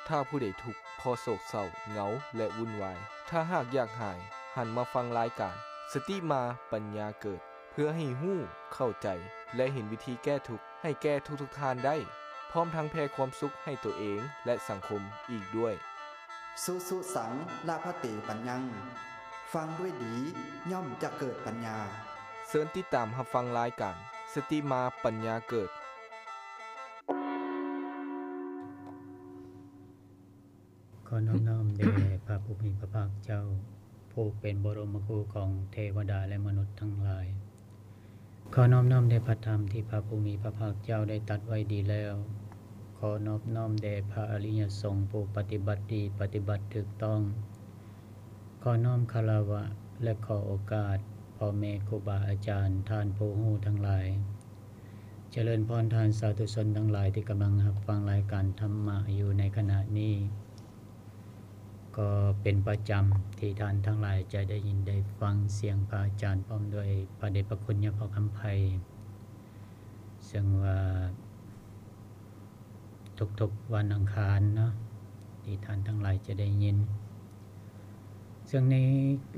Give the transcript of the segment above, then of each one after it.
ຖ້າຜູ້ໃດທຸກ ເພາະໂສກເສົ້າ ເຫງົາ ແລະ ວຸ່ນວາຍ, ຖ້າຫາກຢາກຫາຍ, ຫັນມາຟັງລາຍການ ສະຕິມາປັນຍາເກີດ ເພື່ອໃຫ້ຮູ້, ເຂົ້າໃຈ ແລະ ເຫັນວິທີແກ້ທຸກ ໃຫ້ແກ່ທຸກໆທ່ານໄດ້, ພ້ອມທັງແຜ່ຄວາມສຸກໃຫ້ຕົວເອງ ແລະ ສັງຄົມອີກດ້ວຍ. ສຸສຸສັງ ລະພະເຕ ປັນຍັງ ຟັງດ້ວຍດີ ຍ່ອມຈະເກີດປັນຍາ. ເຊີນຕິດຕາມຮັບຟັງລາຍການ ສະຕິມາປັນຍາເກີດ. ຂໍນອບນ້ອມແດ່ພະຜູ້ມີພະພາກເຈົ້າ ຜູ້ເປັນບໍລົມມະຄູຂອງເທວະດາ ແລະ ມະນຸດທັງຫຼາຍ. ຂໍນອບນ້ອມແດ່ພະທຳທີ່ພະຜູ້ມີພະພາກເຈົ້າໄດ້ຕັດໄວ້ດີແລ້ວ. ຂໍນອບນ້ອມແດ່ພະອະລິຍະສົງຜູ້ປະຕິບັດດີ ປະຕິບັດຖືກຕ້ອງ. ຂໍນ້ອມຄາລະວະ ແລະ ຂໍໂອກາດພໍ່ແມ່ຄູບາອາຈານ, ທ່ານຜູ້ຮູ້ທັງຫຼາຍ. ຈະເລີນພອນທ່ານສາທຸຊົນທັງຫຼາຍທີ່ກຳລັງຮັບຟັງລາຍການທຳມະຢູ່ໃນຂະນະນີ້. ກໍເປັນປະຈຳທີ່ທ່ານທັງຫຼາຍຈະໄດ້ຍິນໄດ້ຟັງສຽງພະອາຈານ ພ້ອມດ້ວຍພະເດດພະຄຸນຍາພໍ່ຄຳໄພ, ເຊິ່ງວ່າທຸກໆວັນອັງຄານເນາະ ທີ່ທ່ານທັງຫຼາຍຈະໄດ້ຍິນ. ເຊິ່ງໃນ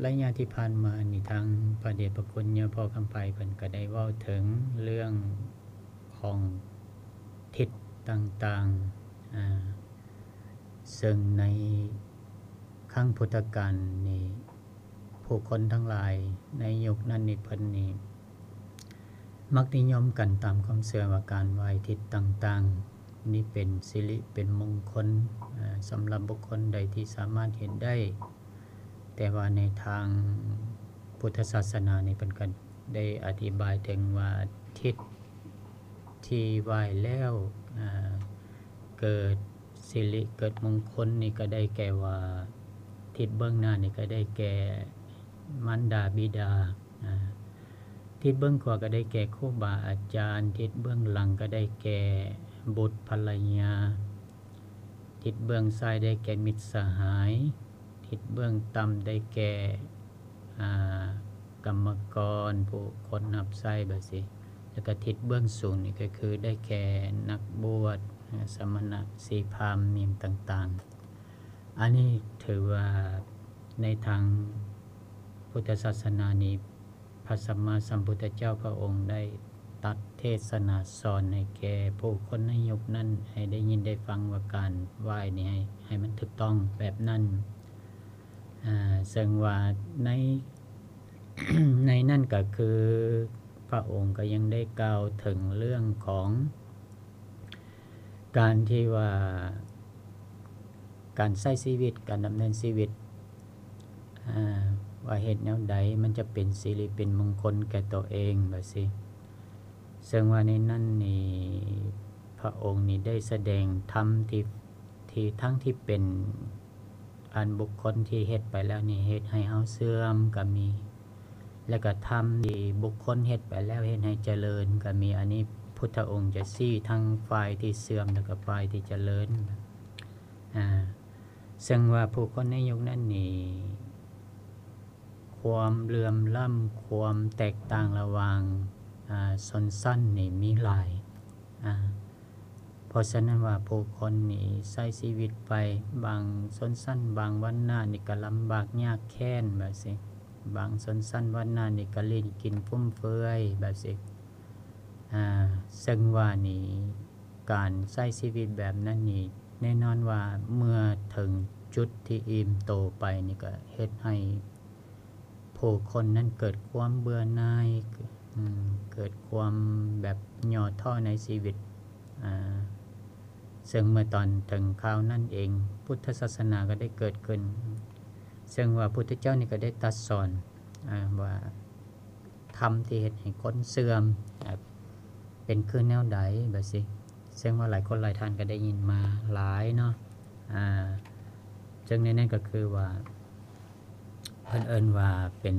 ໄລຍະທີ່ຜ່ານມານີ້ ທາງພະເດດພະຄຸນຍາພໍ່ຄຳໄພເພິ່ນກໍໄດ້ເວົ້າເຖິງເລື່ອງຂອງທິດຕ່າງໆ ອາ ເຊິ່ງໃນຄັ້ງພຸດທະການນີ້ ຜູ້ຄົນທັງຫຼາຍໃນຍຸກນັ້ນນີ້ ເພິ່ນນີ້ມັກນິຍົມກັນຕາມຄວາມເຊື່ອວ່າການໄຫວ້ທິດຕ່າງໆນີ້ເປັນສິລິເປັນມົງຄົນ ອາ ສຳລັບບຸກຄົນໃດທີ່ສາມາດເຮັດໄດ້. ແຕ່ວ່າໃນທາງພຸດທະສາສະໜານີ້ ເພິ່ນກໍໄດ້ອະທິບາຍເຖິງວ່າທິດທີ່ໄຫວ້ແລ້ວ ອາ ເກີດສິລິເກີດມົງຄົນນີ້ກໍໄດ້ແກ່ວ່າ ທິດເບື້ອງໜ້ານີ້ກໍໄດ້ແກ່ມານດາບິດາ ອາ ທິດເບື້ອງຂວາກໍໄດ້ແກ່ຄູບາອາຈານ, ທິດເບື້ອງຫຼັງກໍໄດ້ແກ່ບຸດພັນລະຍາ, ທິດເບື້ອງຊ້າຍໄດ້ແກ່ມິດສະຫາຍ, ທິດເບື້ອງຕ່ຳໄດ້ແກ່ ອາ ກຳມະກອນ ຜູ້ຄົນຮັບໃຊ້ແບບຊີ້ ແລ້ວກໍທິດເບື້ອງສູງນີ້ກໍຄືໄດ້ແກ່ນັກບວດ ອາ ສະມະນະ ສີພາມ ຫຍັງຕ່າງໆ. ອັນນີ້ຖືວ່າໃນທາງພຸດທະສາສະໜານີ້ ພະສຳມາສຳພຸດທະເຈົ້າພະອົງໄດ້ຕັດເທດສະໜາສອນໃຫ້ແກ່ຜູ້ຄົນໃນຍຸກນັ້ນ ໃຫ້ໄດ້ຍິນໄດ້ຟັງວ່າການໄຫວ້ນີ້ໃຫ້ ໃຫ້ມັນຖືກຕ້ອງແບບນັ້ນ. ອາ ເຊິ່ງວ່າໃນ ໃນນັ້ນກໍຄືພະອົງກໍຍັງໄດ້ກ່າວເຖິງເລື່ອງຂອງ ການທີ່ວ່າການໃຊ້ຊີວິດ, ການດຳເນີນຊີວິດ ອາ ວ່າເຮັດແນວໃດມັນຈະເປັນສິລິເປັນມົງຄົນແກ່ຕົວເອງ ແບບຊີ້. ເຊິ່ງວ່າໃນນັ້ນນີ້ ພະອົງນີ້ໄດ້ສະແດງທຳທີ່ ທີ່ທັງທີ່ເປັນອັນບຸກຄົນທີ່ເຮັດໄປແລ້ວນີ້ເຮັດໃຫ້ເຮົາເສື່ອມກໍມີ ແລ້ວກໍທຳທີ່ບຸກຄົນເຮັດໄປແລ້ວເຮັດໃຫ້ຈະເລີນກໍມີ. ອັນນີ້ພຸດທະອົງຈະຊີ້ທັງຝ່າຍທີ່ເສື່ອມ ແລ້ວກໍຝ່າຍທີ່ຈະເລີນ. ອາ ເຊິ່ງວ່າຜູ້ຄົນໃນຍຸກນັ້ນນີ້ ຄວາມເຫຼື່ອມລ້ຳ ຄວາມແຕກຕ່າງລະຫວ່າງ ອາ ຊົນຊັ້ນນີ້ມີຫຼາຍ. ອາ ເພາະສະນັ້ນວ່າຜູ້ຄົນນີ້ໃຊ້ຊີວິດໄປ ບາງຊົນຊັ້ນ ບາງວັນນະນີ້ກໍລຳບາກຍາກແຄ້ນແບບຊີ້, ບາງຊົນຊັ້ນວັນນະນີ້ກໍຫຼິ້ນກິນຟຸມເຟືອຍແບບຊີ້. ອາ ເຊິ່ງວ່ານີ້ ການໃຊ້ຊີວິດແບບນັ້ນນີ້ ແນ່ນອນວ່າເມື່ອເຖິງຈຸດທີ່ອີ່ມໂຕໄປນີ້ ກໍເຮັດໃຫ້ຜູ້ຄົນນັ້ນເກີດຄວາມເບື່ອໜ່າຍ ອາ ເກີດຄວາມແບບຫຍໍ້ທໍ້ໃນຊີວິດ. ອາ ເຊິ່ງເມື່ອຕອນເຖິງຄາວນັ້ນເອງ ພຸດທະສາສະໜາກໍໄດ້ເກີດຂຶ້ນ, ເຊິ່ງວ່າພຸດທະເຈົ້ານີ້ກໍໄດ້ຕັດສອນ ອາ ວ່າ ທຳທີ່ເຮັດໃຫ້ຄົນເສື່ອມ ເປັນຄືແນວໃດແບບຊີ້ ເຊິ່ງວ່າຫຼາຍຄົນຫຼາຍທ່ານກໍໄດ້ຍິນມາຫຼາຍເນາະ. ອາ ເຊິ່ງໃນນັ້ນກໍຄືວ່າ ເພິ່ນເອີ້ນວ່າເປັນ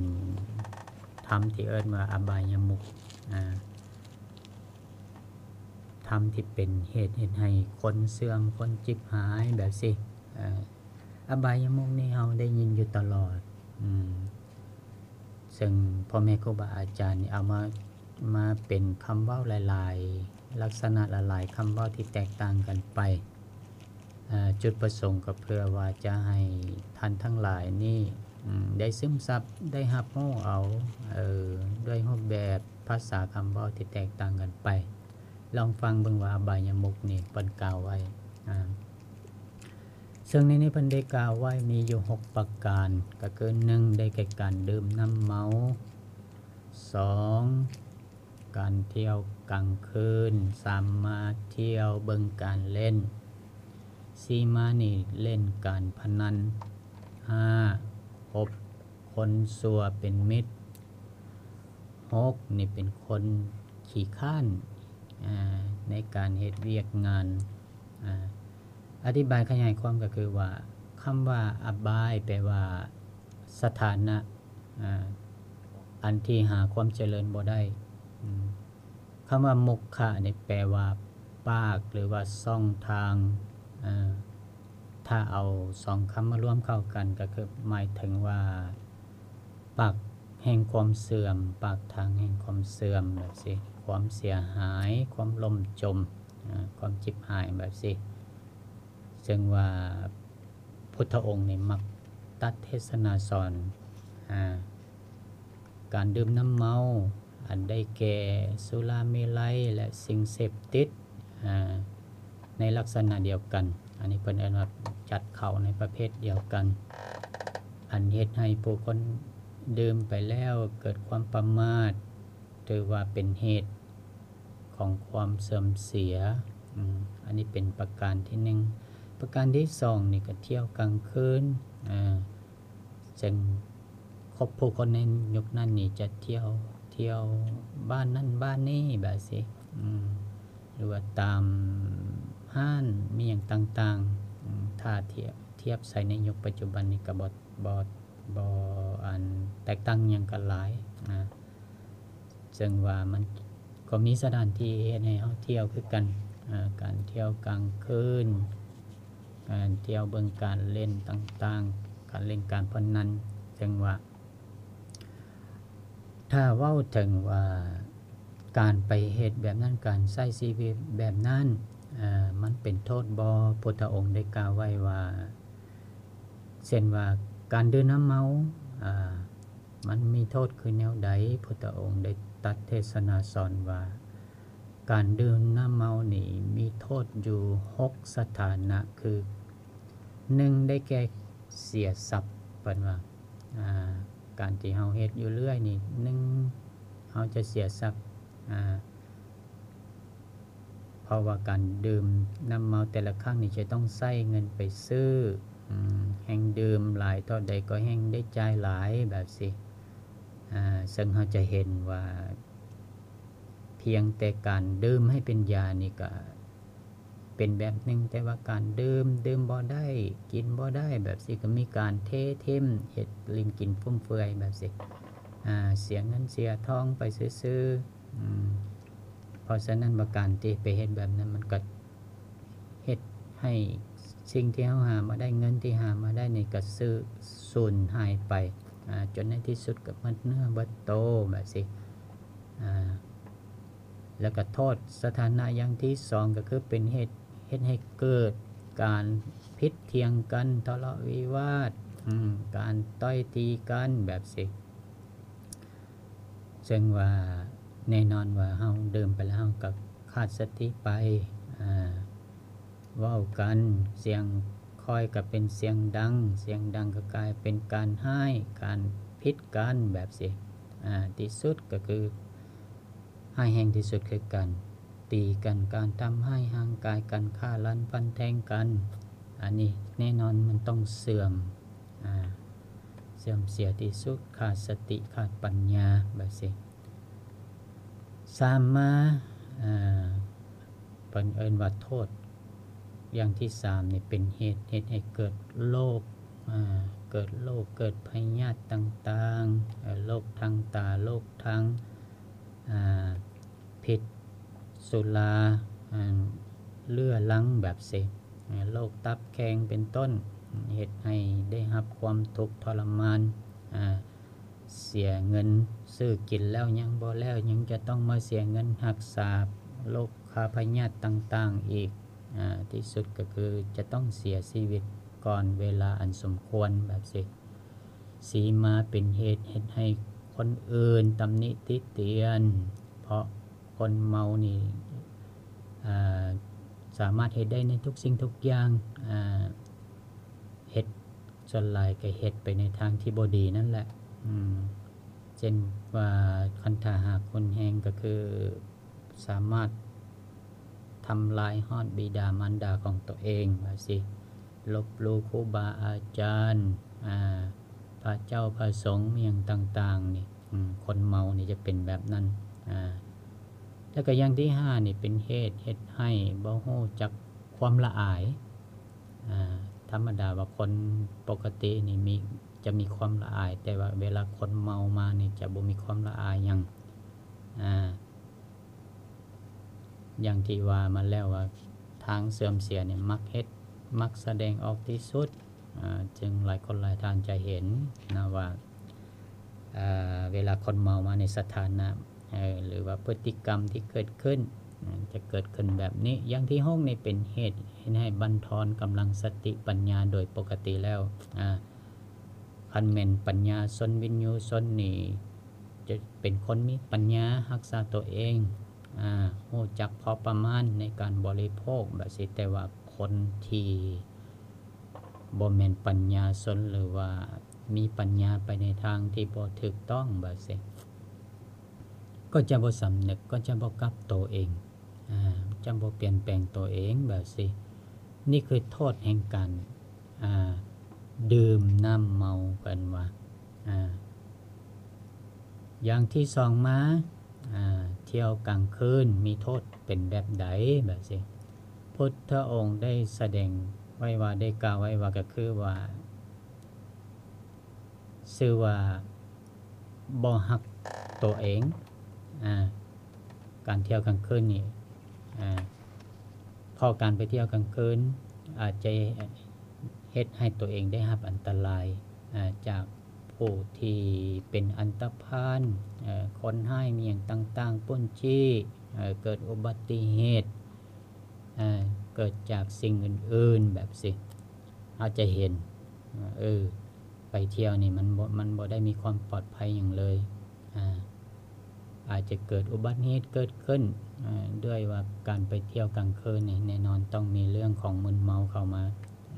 ທຳທີ່ເອີ້ນວ່າອະບາຍະມຸກ ອາ ທຳທີ່ເປັນເຫດເຮັດໃຫ້ຄົນເສື່ອມ ຄົນຈິບຫາຍແບບຊີ້. ອາ ອະບາຍະມຸກນີ້ເຮົາໄດ້ຍິນຢູ່ຕະຫຼອດ ອາ ເຊິ່ງພໍ່ແມ່ຄູບາອາຈານນີ້ເອົາມາ ມາເປັນຄຳເວົ້າຫຼາຍໆ ລັກສະນະຫຼາຍໆຄຳເວົ້າທີ່ແຕກຕ່າງກັນໄປ. ເອີ ຈຸດປະສົງກໍເພື່ອວ່າຈະໃຫ້ທ່ານທັງຫຼາຍນີ້ ອືມ ໄດ້ຊຶມຊັບ ໄດ້ຮັບຮູ້ເອົາ ເອີ ດ້ວຍຮູບແບບພາສາຄຳເວົ້າທີ່ແຕກຕ່າງກັນໄປ. ລອງຟັງເບິ່ງວ່າອະບາຍະມຸກນີ້ເພິ່ນກ່າວໄວ້ ອາ ເຊິ່ງໃນນີ້ເພິ່ນໄດ້ກ່າວໄວ້ມີຢູ່ຫົກປະການ ກໍຄື ໜຶ່ງ ໄດ້ແກ່ການດື່ມນ້ຳເມົາ, ສອງ ການທ່ຽວກາງຄືນ, ສາມ ມາທ່ຽວເບິ່ງການຫຼິ້ນ, ສີ່ ມານີ້ຫຼິ້ນການພະນັນ, ຫ້າ ຄົບຄົນຊົ່ວເປັນມິດ, ຫົກ ນີ້ເປັນຄົນຂີ້ຄ້ານ ອາ ໃນການເຮັດວຽກງານ. ອາ ອະທິບາຍຂະຫຍາຍຄວາມກໍຄືວ່າ ຄຳວ່າອະບາຍແປວ່າສະຖານະ ອາ ອັນທີ່ຫາຄວາມຈະເລີນບໍ່ໄດ້. ອາ ຄຳວ່າມຸກຄະນີ້ແປວ່າປາກ ຫຼືວ່າຊ່ອງທາງ. ອາ ຖ້າເອົາສອງຄຳມາລວມເຂົ້າກັນ ກໍຄືໝາຍເຖິງວ່າ ປາກແຫ່ງຄວາມເສື່ອມ, ປາກທາງແຫ່ງຄວາມເສື່ອມແບບຊີ້, ຄວາມເສຍຫາຍ, ຄວາມລົ້ມຈົມ, ອາ ຄວາມຈິບຫາຍແບບຊີ້. ເຊິ່ງວ່າພຸດທະອົງນີ້ມັກຕັດເທດສະນາສອນ ອາ ການດື່ມນ້ຳເມົາ ອັນໄດ້ແກ່ສຸລາເມໄລ ແລະ ສິ່ງເສບຕິດ ອາ ໃນລັກສະນະດຽວກັນ. ອັນນີ້ເພິ່ນເອີ້ນວ່າຈັດເຂົ້າໃນປະເພດດຽວກັນ ອັນເຮັດໃຫ້ຜູ້ຄົນດື່ມໄປແລ້ວເກີດຄວາມປະໝາດ ຖືວ່າເປັນເຫດຂອງຄວາມເສື່ອມເສຍ. ອາ ອັນນີ້ເປັນປະການທີໜຶ່ງ. ປະການທີສອງນີ້ກໍທ່ຽວກາງຄືນ ອາ ເຊິ່ງຄົບຜູ້ຄົນໃນຍຸກນັ້ນນີ້ຈະທ່ຽວ ທ່ຽວບ້ານນັ້ນບ້ານນີ້ແບບຊີ້ ອາ ຫຼືວ່າຕາມຮ້ານມີຫຍັງຕ່າງໆ. ອາ ຖ້າທຽບ ທຽບໃສ່ໃນຍຸກປັດຈຸບັນນີ້ກໍບໍ່ ບໍ່ ບໍ່ ອັນ ແຕກຕ່າງຫຍັງກັນຫຼາຍ. ອາ ເຊິ່ງວ່າມັນກໍມີສະຖານທີ່ເຮັດໃຫ້ເຮົາທ່ຽວຄືກັນ ອາ ການທ່ຽວກາງຄືນ, ການທ່ຽວເບິ່ງການຫຼິ້ນຕ່າງໆ, ການຫຼິ້ນການພະນັນ. ເຊິ່ງວ່າ ຖ້າເວົ້າເຖິງວ່າການໄປເຮັດແບບນັ້ນ, ການໃຊ້ຊີວິດແບບນັ້ນ ອາ ມັນເປັນໂທດບໍ່? ພຸດທະອົງໄດ້ກ່າວໄວ້ວ່າ ເຊັ່ນວ່າການດື່ມນ້ຳເມົາ ອາ ມັນມີໂທດຄືແນວໃດ? ພຸດທະອົງໄດ້ຕັດເທດສະນາສອນວ່າ ການດື່ມນ້ຳເມົານີ້ມີໂທດຢູ່ຫົກສະຖານະ ຄື ໜຶ່ງ ໄດ້ແກ່ເສຍຊັບ. ເພິ່ນວ່າ ອາ ການທີ່ເຮົາເຮັດຢູ່ເລື້ອຍນີ້ ໜຶ່ງ ເຮົາຈະເສຍຊັບ ອາ ເພາະວ່າການດື່ມນ້ຳເມົາແຕ່ລະຄັ້ງນີ້ຈະຕ້ອງໃຊ້ເງິນໄປຊື້ ອາ ແຮ່ງດື່ມຫຼາຍເທົ່າໃດກໍແຮ່ງໄດ້ຈ່າຍຫຼາຍແບບຊີ້. ອາ ເຊິ່ງເຮົາຈະເຫັນວ່າ ພຽງແຕ່ການດື່ມໃຫ້ເປັນຢານີ້ກໍເປັນແບບໜຶ່ງ, ແຕ່ວ່າການດື່ມ ດື່ມບໍ່ໄດ້ ກິນບໍ່ໄດ້ແບບຊີ້ ກໍມີການເທຖິ້ມ ເຮັດຫຼິ້ນກິນຟຸມເຟືອຍແບບຊີ້ ອາ ເສຍເງິນເສຍທອງໄປຊື່ໆ. ອາ ເພາະສະນັ້ນວ່າການທີ່ໄປເຮັດແບບນັ້ນ ມັນກໍເຮັດໃຫ້ສິ່ງທີ່ເຮົາຫາມາໄດ້ ເງິນທີ່ຫາມາໄດ້ນີ້ກໍສູນຫາຍໄປ ອາ ຈົນໃນທີ່ສຸດກໍໝົດເນື້ອໝົດໂຕແບບຊີ້. ອາ ແລ້ວກໍໂທດສະຖານະຢ່າງທີສອງ ກໍຄືເປັນເຫດ ເຮັດໃຫ້ເກີດການຜິດຖຽງກັນ ທະເລາະວິວາດ ອາ ການຕ່ອຍຕີກັນແບບຊີ້. ເຊິ່ງວ່າແນ່ນອນວ່າເຮົາດື່ມໄປແລ້ວ ເຮົາກໍຂາດສະຕິໄປ ອາ ເວົ້າກັນ ສຽງຄ່ອຍກໍເປັນສຽງດັງ ສຽງດັງກໍກາຍເປັນການຮ້າຍ ການຜິດກັນແບບຊີ້. ອາ ທີ່ສຸດກໍຄືຮ້າຍແຮງທີ່ສຸດຄືການຕີກັນ ການທຳຮ້າຍຮ່າງກາຍກັນ ຂ້າລ້ານຟັນແທງກັນ. ອັນນີ້ແນ່ນອນມັນຕ້ອງເສື່ອມ ອາ ເສື່ອມເສຍທີ່ສຸດ ຂາດສະຕິ ຂາດປັນຍາແບບຊີ້. ສາມມາ ເອີ ເພິ່ນເອີ້ນວ່າໂທດຢ່າງທີສາມນີ້ເປັນເຫດ ເຮັດໃຫ້ເກີດໂລກ ເກີດໂລກ ເກີດພະຍາດຕ່າງໆ ເອີ ໂລກທາງຕາ ໂລກທາງ ອາ ພິດສຸລາ ອາ ເຫຼືອລັງແບບຊີ້ ອາ ໂລກຕັບແຂງເປັນຕົ້ນ ເຮັດໃຫ້ໄດ້ຮັບຄວາມທຸກທໍລະມານ ອາ ເສຍເງິນຊື້ກິນແລ້ວຍັງບໍ່ແລ້ວ ຍັງຈະຕ້ອງມາເສຍເງິນຮັກສາໂລກຄາພະຍາດຕ່າງໆອີກ ອ່າ ທີ່ສຸດກໍຄືຈະຕ້ອງເສຍຊີວິດກ່ອນເວລາອັນສົມຄວນແບບຊີ້ ສີມາເປັນເຫດເຮັດໃຫ້ຄົນອື່ນຕຳໜິຕິຕຽນ ເພາະຄົນເມົານີ້ ອ່າ ສາມາດເຮັດໄດ້ໃນທຸກສິ່ງທຸກຢ່າງ ອ່າ ເຮັດ ສ່ວນຫຼາຍກໍເຮັດໄປໃນທາງທີ່ບໍ່ດີນັ້ນແຫຼະ ອືມ ເຊັ່ນວ່າຄັນຖ້າຫາກຮຸນແຮງກໍຄືສາມາດທຳລາຍຮອດບິດາມານດາຂອງຕົວເອງວ່າຊີ້ ລົບຫຼູ່ຄູບາອາຈານ ອ່າ ພະເຈົ້າພະສົງ ອີ່ຫຍັງຕ່າງໆນີ້ ອືມ ຄົນເມົານີ້ຈະເປັນແບບນັ້ນ ອ່າ ແລ້ວກໍຢ່າງທີຫ້ານີ້ເປັນເຫດເຮັດໃຫ້ບໍ່ຮູ້ຈັກຄວາມລະອາຍ ອ່າ ທຳມະດາວ່າຄົນປົກກະຕິນີ້ມີ ຈະມີຄວາມລະອາຍ ແຕ່ວ່າເວລາຄົນເມົາມານີ້ຈະບໍ່ມີຄວາມລະອາຍຫຍັງ ອ່າ ຢ່າງທີ່ວ່າມາແລ້ວວ່າ ທາງເສື່ອມເສຍນີ້ມັກເຮັດ ມັກສະແດງອອກທີ່ສຸດ ອ່າ ເຊິ່ງຫຼາຍຄົນຫຼາຍທ່ານຈະເຫັນນະວ່າ ເວລາຄົນເມົາມາໃນສະຖານະ ເອີ ຫຼືວ່າພຶດຕິກຳທີ່ເກີດຂຶ້ນ ຈະເກີດຂຶ້ນແບບນີ້. ຢ່າງທີຫົກນີ້ເປັນເຫດເຮັດໃຫ້ບັນທອນກຳລັງສະຕິປັນຍາ. ໂດຍປົກກະຕິແລ້ວ ຄັນແມ່ນປັນຍາຊົນ ວິນຍູຊົນນີ້ ຈະເປັນຄົນມີປັນຍາຮັກສາຕົວເອງ ຮູ້ຈັກພໍປະມານໃນການບໍລິໂພກແບບຊີ້ ແຕ່ວ່າຄົນທີ່ ບໍ່ແມ່ນປັນຍາຊົນ ຫຼືວ່າມີປັນຍາໄປໃນທາງທີ່ບໍ່ຖືກຕ້ອງແບບຊີ້ ກໍຈະບໍ່ສຳນຶກ ກໍຈະບໍ່ກັບໂຕເອງ ອ່າ ຈະບໍ່ປ່ຽນແປງໂຕເອງແບບຊີ້. ນີ້ຄືໂທດແຫ່ງການ ອ່າ ດື່ມນ້ຳເມົາ ເພິ່ນວ່າ ອ່າ ຢ່າງທີສອງມາ ອ່າ ທ່ຽວກາງຄືນມີໂທດເປັນແບບໃດແບບຊີ້. ພຸດທະອົງໄດ້ສະແດງໄວ້ວ່າ ໄດ້ກ່າວໄວ້ວ່າ ກໍຄືວ່າ ຊື່ວ່າບໍ່ຮັກໂຕເອງ ອ່າ ການທ່ຽວກາງຄືນນີ້ ອ່າ ເພາະການໄປທ່ຽວກາງຄືນອາດຈະເຮັດໃຫ້ໂຕເອງໄດ້ຮັບອັນຕະລາຍ ອ່າ ຈາກຜູ້ທີ່ເປັນອັນຕະພານ ເອີ ຄົນຮ້າຍ ມີຫຍັງຕ່າງໆ ປຸ້ນຈີ້ ເອີ ເກີດອຸບັດຕິເຫດ ເອີ ເກີດຈາກສິ່ງອື່ນໆ ແບບຊີ້ ເຮົາຈະເຫັນ ເອີ ໄປທ່ຽວນີ້ມັນບໍ່ ມັນບໍ່ໄດ້ມີຄວາມປອດໄພຫຍັງເລີຍ ອາ ອາດຈະເກີດອຸບັດເຫດເກີດຂຶ້ນ ອາ ດ້ວຍວ່າການໄປທ່ຽວກາງຄືນນີ້ ແນ່ນອນຕ້ອງມີເລື່ອງຂອງມຶນເມົາເຂົ້າມາ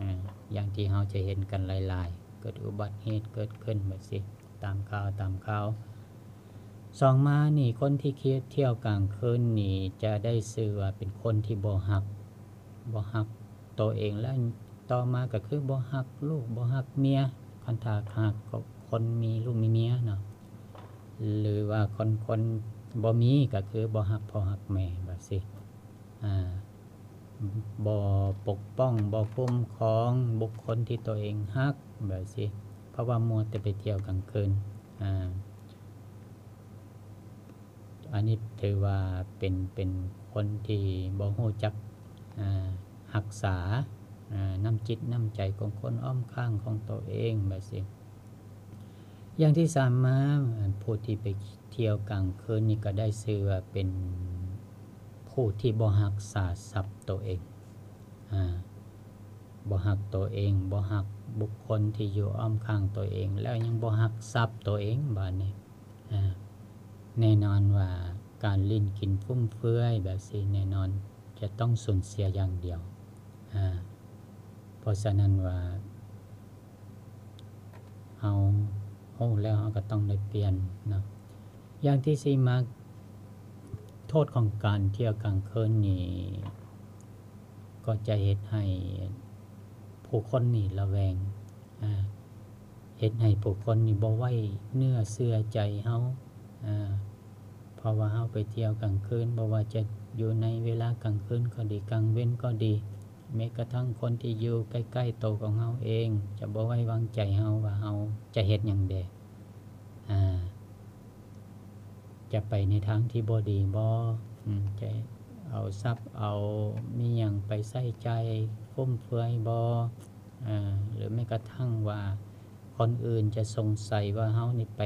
ອາ ຢ່າງທີ່ເຮົາຈະເຫັນກັນຫຼາຍໆ ເກີດອຸບັດເຫດເກີດຂຶ້ນແບບຊີ້ ຕາມຂ່າວ ຕາມຂ່າວ. ສອງມານີ້ ຄົນທີ່ທ່ຽວກາງຄືນນີ້ ຈະໄດ້ຊື່ວ່າເປັນຄົນທີ່ບໍ່ຮັກ ບໍ່ຮັກໂຕເອງ ແລະ ຕໍ່ມາກໍຄືບໍ່ຮັກລູກ ບໍ່ຮັກເມຍ ຄັນຖ້າຫາກຄົນມີລູກມີເມຍເນາະ ຫຼືວ່າຄົນ ຄົນບໍ່ມີ ກໍຄືບໍ່ຮັກພໍ່ຮັກແມ່ ແບບຊີ້ ອາ ບໍ່ປົກປ້ອງ ບໍ່ຄຸ້ມຄອງບຸກຄົນທີ່ຕົວເອງຮັກ ແບບຊີ້ ເພາະວ່າມົວແຕ່ໄປທ່ຽວກາງຄືນ ອາ ອັນນີ້ຖືວ່າເປັນ ເປັນຄົນທີ່ບໍ່ຮູ້ຈັກ ອາ ຮັກສາ ອາ ນ້ຳຈິດນ້ຳໃຈຂອງຄົນອ້ອມຂ້າງຂອງໂຕເອງ ແບບຊີ້. ຢ່າງທີສາມມາ ຜູ້ທີ່ໄປທ່ຽວກາງຄືນນີ້ ກໍໄດ້ຊື່ວ່າເປັນຜູ້ທີ່ບໍ່ຮັກສາຊັບໂຕເອງ ອາ ບໍ່ຮັກໂຕເອງ ບໍ່ຮັກບຸກຄົນທີ່ຢູ່ອ້ອມຂ້າງໂຕເອງ ແລ້ວຍັງບໍ່ຮັກຊັບໂຕເອງ ບາດນີ້ ອາ ແນ່ນອນວ່າການຫຼິ້ນກິນຟຸມເຟືອຍແບບຊີ້ ແນ່ນອນຈະຕ້ອງສູນເສຍຢ່າງດຽວ ອາ ເພາະສະນັ້ນວ່າ ເຮົາຮູ້ແລ້ວເຮົາກໍຕ້ອງໄດ້ປ່ຽນເນາະ. ຢ່າງທີສີ່ມາ ໂທດຂອງການທ່ຽວກາງຄືນນີ້ ກໍຈະເຮັດໃຫ້ຜູ້ຄົນນີ້ລະແວງ ອາ ເຮັດໃຫ້ຜູ້ຄົນນີ້ບໍ່ໄວ້ເນື້ອເຊື່ອໃຈເຮົາ ອາ ເພາະວ່າເຮົາໄປທ່ຽວກາງຄືນ ບໍ່ວ່າຈະຢູ່ໃນເວລາກາງຄືນກໍດີ ກາງເວັນກໍດີ ແມ້ກະທັ່ງຄົນທີ່ຢູ່ໃກ້ໆໂຕຂອງເຮົາເອງ ຈະບໍ່ໄວ້ວາງໃຈເຮົາວ່າເຮົາຈະເຮັດຫຍັງແດ່ ອາ ຈະໄປໃນທາງທີ່ບໍ່ດີບໍ່ ອາ ຈະເອົາຊັບເອົາມີຫຍັງໄປໃຊ້ຈ່າຍຟຸມເຟືອຍບໍ່ ອາ ຫຼືແມ້ກະທັ່ງວ່າຄົນອື່ນຈະສົງໄສວ່າເຮົານີ້ໄປ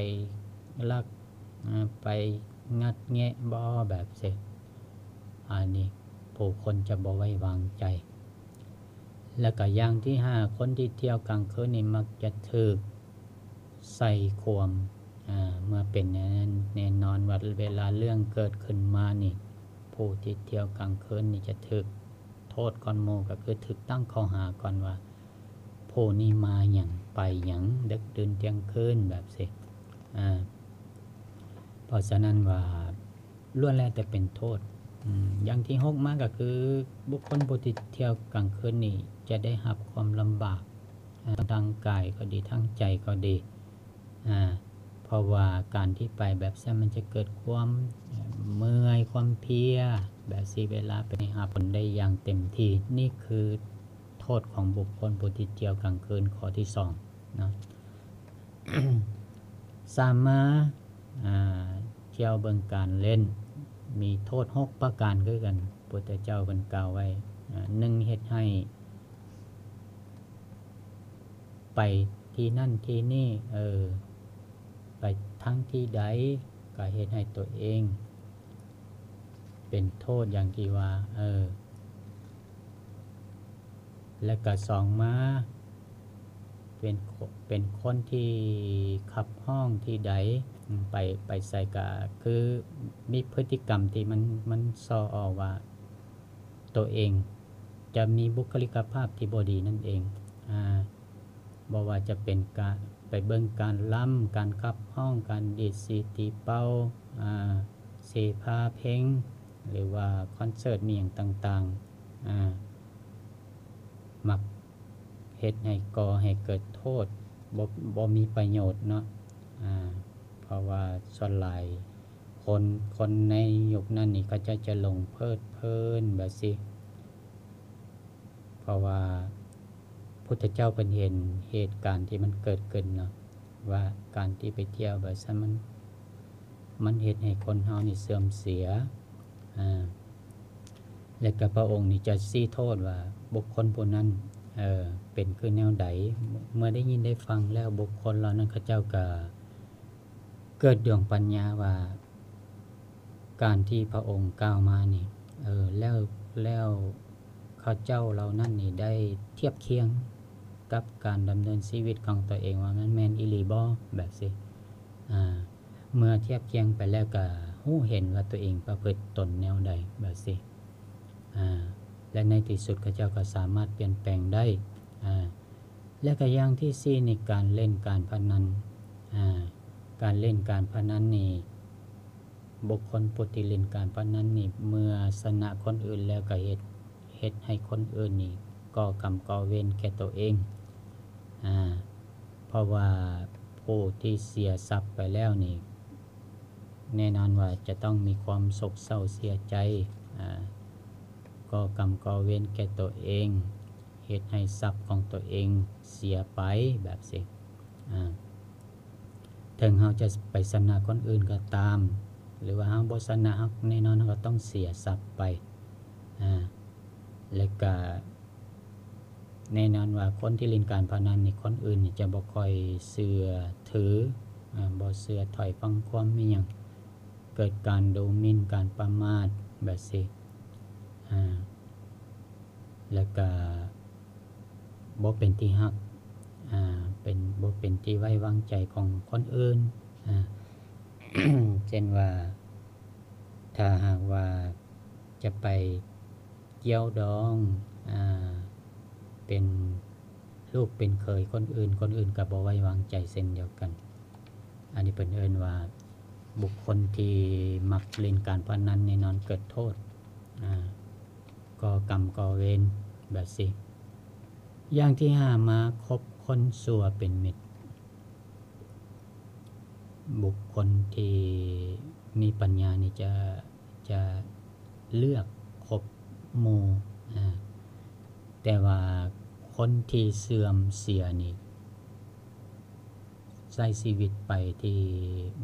ລັກ ອາ ໄປງັດແງະບໍ່ ແບບຊີ້. ອັນນີ້ ຜູ້ຄົນຈະບໍ່ໄວ້ວາງໃຈ. ແລ້ວກໍຢ່າງທີຫ້າ ຄົນທີ່ທ່ຽວກາງຄືນນີ້ມັກຈະຖືກໃສ່ຄວາມ ອາ ເມື່ອເປັນແນວນັ້ນ ແນ່ນອນວ່າເວລາເລື່ອງເກີດຂຶ້ນມານີ້ ຜູ້ທີ່ທ່ຽວກາງຄືນນີ້ຈະຖືກໂທດກ່ອນໝູ່ ກໍຄືຖືກຕັ້ງຂໍ້ຫາກ່ອນວ່າ ຜູ້ນີ້ມາຫຍັງ ໄປຫຍັງ ເດິກດື່ນທ່ຽງຄືນ ແບບຊີ້ ອາ ເພາະສະນັ້ນວ່າ ລ້ວນແລ້ວແຕ່ເປັນໂທດ. ອາ ຢ່າງທີຫົກມາກໍຄື ບຸກຄົນຜູ້ທີ່ທ່ຽວກາງຄືນນີ້ຈະໄດ້ຮັບຄວາມລຳບາກ ອາ ທາງກາຍກໍດີ ທາງໃຈກໍດີ ອາ ເພາະວ່າການທີ່ໄປແບບຊັ້ນມັນຈະເກີດຄວາມເມື່ອຍ ຄວາມເພຍ ແບບຊີ້ ເວລາໄປຮັບຜົນໄດ້ຢ່າງເຕັມທີ່. ນີ້ຄືໂທດຂອງບຸກຄົນຜູ້ທີ່ທ່ຽວກາງຄືນ ຂໍ້ທີສອງເນາະ. ສາມມາ ອາ ທ່ຽວເບິ່ງການຫຼິ້ນ ມີໂທດຫົກປະການຄືກັນ ພຸດທະເຈົ້າເພິ່ນກ່າວໄວ້. ອາ ໜຶ່ງ ເຮັດໃຫ້ໄປທີ່ນັ້ນທີ່ນີ້ ເອີ ໄປທາງທີ່ໃດ ກໍເຮັດໃຫ້ຕົວເອງເປັນໂທດ ຢ່າງທີ່ວ່າ ເອີ ແລະກະສອງມາ ເປັນຄົນ ເປັນຄົນທີ່ຂັບຮ້ອງທີ່ໃດ ໄປ ໄປໃສກະຄືມີພຶດຕິກຳທີ່ມັນ ມັນສໍ່ອອກວ່າໂຕເອງຈະມີບຸກຄະລິກະພາບທີ່ບໍ່ດີນັ້ນເອງ. ອາ ບໍ່ວ່າຈະເປັນການໄປເບິ່ງການລຳ, ການຂັບຮ້ອງ, ການດີດສີຕີເປົ່າ, ອາ ເສພາເພັງ ຫຼືວ່າຄອນເສີດມີຫຍັງຕ່າງໆ ອາ ມັກເຮັດໃຫ້ ກໍ່ໃຫ້ເກີດໂທດ ບໍ່ ບໍ່ມີປະໂຫຍດເນາະ. ອາ ເພາະວ່າສ່ວນຫຼາຍຄົນ ຄົນໃນຍຸກນັ້ນນີ້ ເຂົາເຈົ້າຈະຫຼົງເພີດເພີນແບບຊີ້. ເພາະວ່າພຸດທະເຈົ້າເພິ່ນເຫັນເຫດການທີ່ມັນເກີດຂຶ້ນເນາະ ວ່າການທີ່ໄປທ່ຽວແບບຊັ້ນ ມັນ ມັນເຮັດໃຫ້ຄົນເຮົານີ້ເສື່ອມເສຍ. ອາ ແລະກະພະອົງນີ້ຈະຊີ້ໂທດວ່າບຸກຄົນຜູ້ນັ້ນ ເອີ ເປັນຄືແນວໃດ. ເມື່ອໄດ້ຍິນໄດ້ຟັງແລ້ວ ບຸກຄົນເຫຼົ່ານັ້ນເຂົາເຈົ້າກະ ເກີດດວງປັນຍາວ່າ ການທີ່ພະອົງກ່າວມານີ້ ເອີ ແລ້ວ ແລ້ວເຂົາເຈົ້າເຫຼົ່ານັ້ນນີ້ໄດ້ທຽບຄຽງກັບການດຳເນີນຊີວິດຂອງຕົວເອງວ່າມັນແມ່ນອີ່ຫຼີບໍ່ ແບບຊີ້. ອາ ເມື່ອທຽບຄຽງໄປແລ້ວກະຮູ້ເຫັນວ່າຕົວເອງປະພຶດຕົນແນວໃດ ແບບຊີ້. ອາ ແລະໃນທີ່ສຸດເຂົາເຈົ້າກໍສາມາດປ່ຽນແປງໄດ້. ອາ ແລະກະຢ່າງທີສີ່ນີ້ ການຫຼິ້ນການພະນັນ. ອາ ການຫຼິ້ນການພະນັນນີ້ ບຸກຄົນຜູ້ທີ່ຫຼິ້ນການພະນັນນີ້ ເມື່ອຊະນະຄົນອື່ນແລ້ວກະເຮັດ ເຮັດໃຫ້ຄົນອື່ນນີ້ກໍ່ກຳກໍ່ເວນແກ່ໂຕເອງ. ອາ ເພາະວ່າຜູ້ທີ່ເສຍຊັບໄປແລ້ວນີ້ ແນ່ນອນວ່າຈະຕ້ອງມີຄວາມໂສກເສົ້າເສຍໃຈ ອາ ກໍ່ກຳກໍ່ເວນແກ່ຕົວເອງ ເຮັດໃຫ້ຊັບຂອງຕົວເອງເສຍໄປແບບຊີ້. ອາ ເຖິງເຮົາຈະໄປຊະນະຄົນອື່ນກໍຕາມ ຫຼືວ່າເຮົາບໍ່ຊະນະ ເຮົາ ແນ່ນອນເຮົາກໍຕ້ອງເສຍຊັບໄປ. ອາ ແລະກະ ແນ່ນອນວ່າຄົນທີ່ຫຼິ້ນການພະນັນນີ້ ຄົນອື່ນນີ້ຈະບໍ່ຄ່ອຍເຊື່ອຖື ອາ ບໍ່ເຊື່ອຖ້ອຍຟັງຄວາມອີ່ຫຍັງ ເກີດການດູໝິ່ນ ການປະໝາດແບບຊີ້. ອາ ແລ້ວກະບໍ່ເປັນທີ່ຮັກ ອາ ເປັນ ບໍ່ເປັນທີ່ໄວ້ວາງໃຈຂອງຄົນອື່ນ. ອາ ເຊັ່ນວ່າ ຖ້າຫາກວ່າຈະໄປ ກ່ຽວດອງ ອາ ເປັນລູກເປັນເຂີຍຄົນອື່ນ ຄົນອື່ນກໍບໍ່ໄວ້ວາງໃຈເຊັ່ນດຽວກັນ. ອັນນີ້ເພິ່ນເອີ້ນວ່າ ບຸກຄົນທີ່ມັກຫຼິ້ນການພະນັນແນ່ນອນເກີດໂທດ ອາ ກໍ່ກຳກໍ່ເວນແບບຊີ້. ຢ່າງທີຫ້າມາ ຄົບຄົນຊົ່ວເປັນມິດ. ບຸກຄົນທີ່ມີປັນຍານີ້ຈະ ຈະເລືອກຄົບໝູ່ ອາ ແຕ່ວ່າຄົນທີ່ເສື່ອມເສຍນີ້ ໃຊ້ຊີວິດໄປທີ່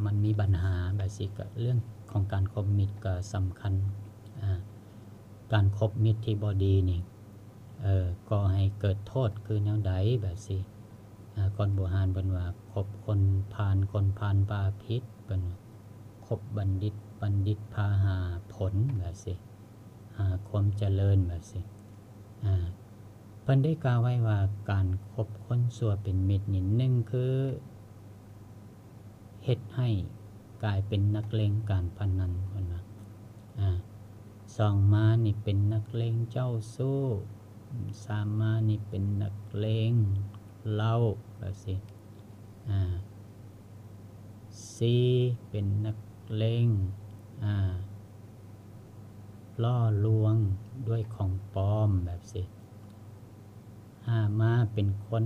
ມັນມີບັນຫາແບບຊີ້ ກະເລື່ອງຂອງການຄົບມິດກໍສຳຄັນ. ອາ ການຄົບມິດທີ່ບໍ່ດີນີ້ ເອີ ກໍ່ໃຫ້ເກີດໂທດຄືແນວໃດແບບຊີ້. ອາ ຄົນບູຮານເພິ່ນວ່າ ຄົບຄົນພານ ຄົນພານພາຜິດ ເພິ່ນວ່າ ຄົບບັນດິດ ບັນດິດພາຫາຜົນແບບຊີ້. ຫາຄວາມຈະເລີນ ແບບຊີ້. ອາ ເພິ່ນໄດ້ກ່າວໄວ້ວ່າ ການຄົບຄົນຊົ່ວເປັນມິດນີ້ ໜຶ່ງຄືເຮັດໃຫ້ກາຍເປັນນັກເລ່ນການພະນັນ ເພິ່ນວ່າ. ອາ ສອງມານີ້ເປັນນັກເລ່ນເຈົ້າຊູ້, ສາມມານີ້ເປັນນັກເລ່ນເຫຼົ້າ ແບບຊີ້. ອາ ສີ່ເປັນນັກເລ່ນ ອາ ຫຼໍ່ລວງດ້ວຍຂອງປອມ ແບບຊີ້. ຫ້າມາເປັນຄົນ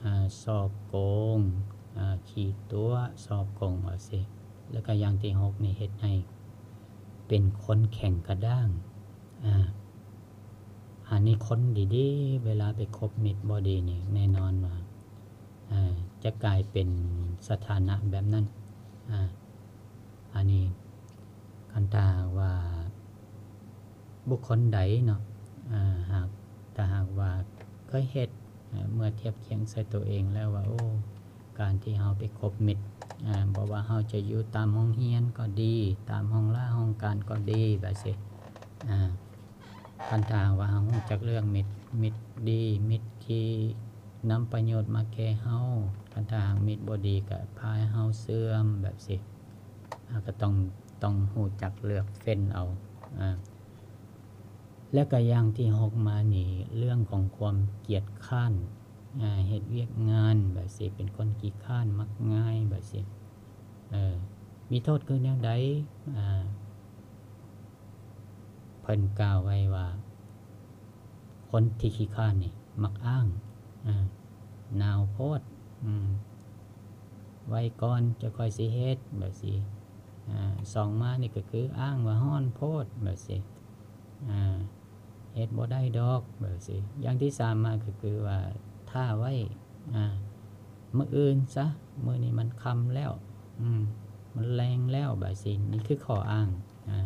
ອາ ສໍ້ໂກງ ອາ ຂີ້ຕົວະ ສໍ້ໂກງ ແບບຊີ້. ແລ້ວກໍຢ່າງທີຫົກນີ້ ເຮັດໃຫ້ເປັນຄົນແຂງກະດ້າງ. ອາ ອັນນີ້ຄົນດີໆ ເວລາໄປຄົບມິດບໍ່ດີນີ້ ແນ່ນອນວ່າ ອາ ຈະກາຍເປັນສະຖານະແບບນັ້ນ. ອາ ອັນນີ້ ຄັນຖ້າຫາກວ່າບຸກຄົນໃດເນາະ ອາ ຫາກ ຖ້າຫາກວ່າເຄີຍເຮັດ ອາ ເມື່ອທຽບຄຽງໃສ່ຕົວເອງແລ້ວວ່າ ໂອ້ ການທີ່ເຮົາໄປຄົບມິດ ອາ ບໍ່ວ່າເຮົາຈະຢູ່ຕາມໂຮງຮຽນກໍດີ ຕາມຫ້ອງລາຫ້ອງການກໍດີ ແບບຊີ້. ອາ ຄັນຖ້າຫາກວ່າເຮົາຮູ້ຈັກເລືອກມິດ ມິດດີ ມິດທີ່ນຳປະໂຫຍດມາແກ່ເຮົາ, ຄັນຖ້າຫາກມິດບໍ່ດີກໍພາໃຫ້ເຮົາເສື່ອມ ແບບຊີ້. ເຮົາກໍຕ້ອງ ຕ້ອງຮູ້ຈັກເລືອກເຟ້ນເອົາ. ອາ ແລ້ວກໍຢ່າງທີຫົກມານີ້ ເລື່ອງຂອງຄວາມກຽດຄ້ານ ອາ ເຮັດວຽກງານ ແບບຊີ້ ເປັນຄົນຂີ້ຄ້ານ ມັກງ່າຍ ແບບຊີ້. ເອີ ມີໂທດຄືແນວໃດ? ອາ ເພິ່ນກ່າວໄວ້ວ່າ ຄົນທີ່ຂີ້ຄ້ານນີ້ມັກອ້າງ ອາ ໜາວໂພດ ອາ ໄວ້ກ່ອນ ຈະຄ່ອຍຊິເຮັດ ແບບຊີ້. ອາ ສອງມານີ້ກໍຄືອ້າງວ່າຮ້ອນໂພດ ແບບຊີ້. ອາ ເຮັດບໍ່ໄດ້ດອກ ແບບຊີ້. ຢ່າງທີສາມມາກໍຄືວ່າ ຖ້າໄວ້ ອາ ມື້ອື່ນຊະ ມື້ນີ້ມັນຄ່ຳແລ້ວ ອືມ ມັນແລງແລ້ວ ແບບຊີ້. ນີ້ຄືຂໍ້ອ້າງ. ອາ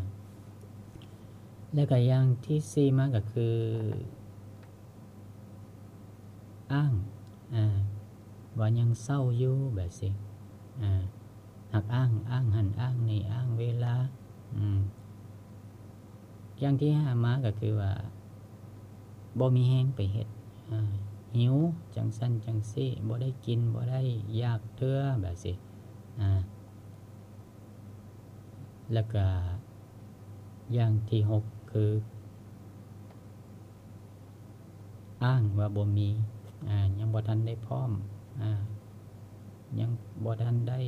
ແລ້ວກໍຢ່າງທີສີ່ມາກໍຄື ອ້າງ ອາ ວ່າຍັງເຊົາຢູ່ ແບບຊີ້. ອາ ຫາກອ້າງ ອ້າງຫັ້ນອ້າງນີ້ ອ້າງເວລາ. ອືມ ຢ່າງທີຫ້າມາກໍຄືວ່າ ບໍ່ມີແຮງໄປເຮັດ ອາ ຫິວ ຈັ່ງຊັ້ນຈັ່ງຊີ້ ບໍ່ໄດ້ກິນ ບໍ່ໄດ້ ຢາກເທື່ອ ແບບຊີ້. ອາ ແລ້ວກະຢ່າງທີຫົກຄື ອ້າງວ່າບໍ່ມີ ອາ ຍັງບໍ່ທັນໄດ້ພ້ອມ ອາ ຍັງບໍ່ທັນໄດ້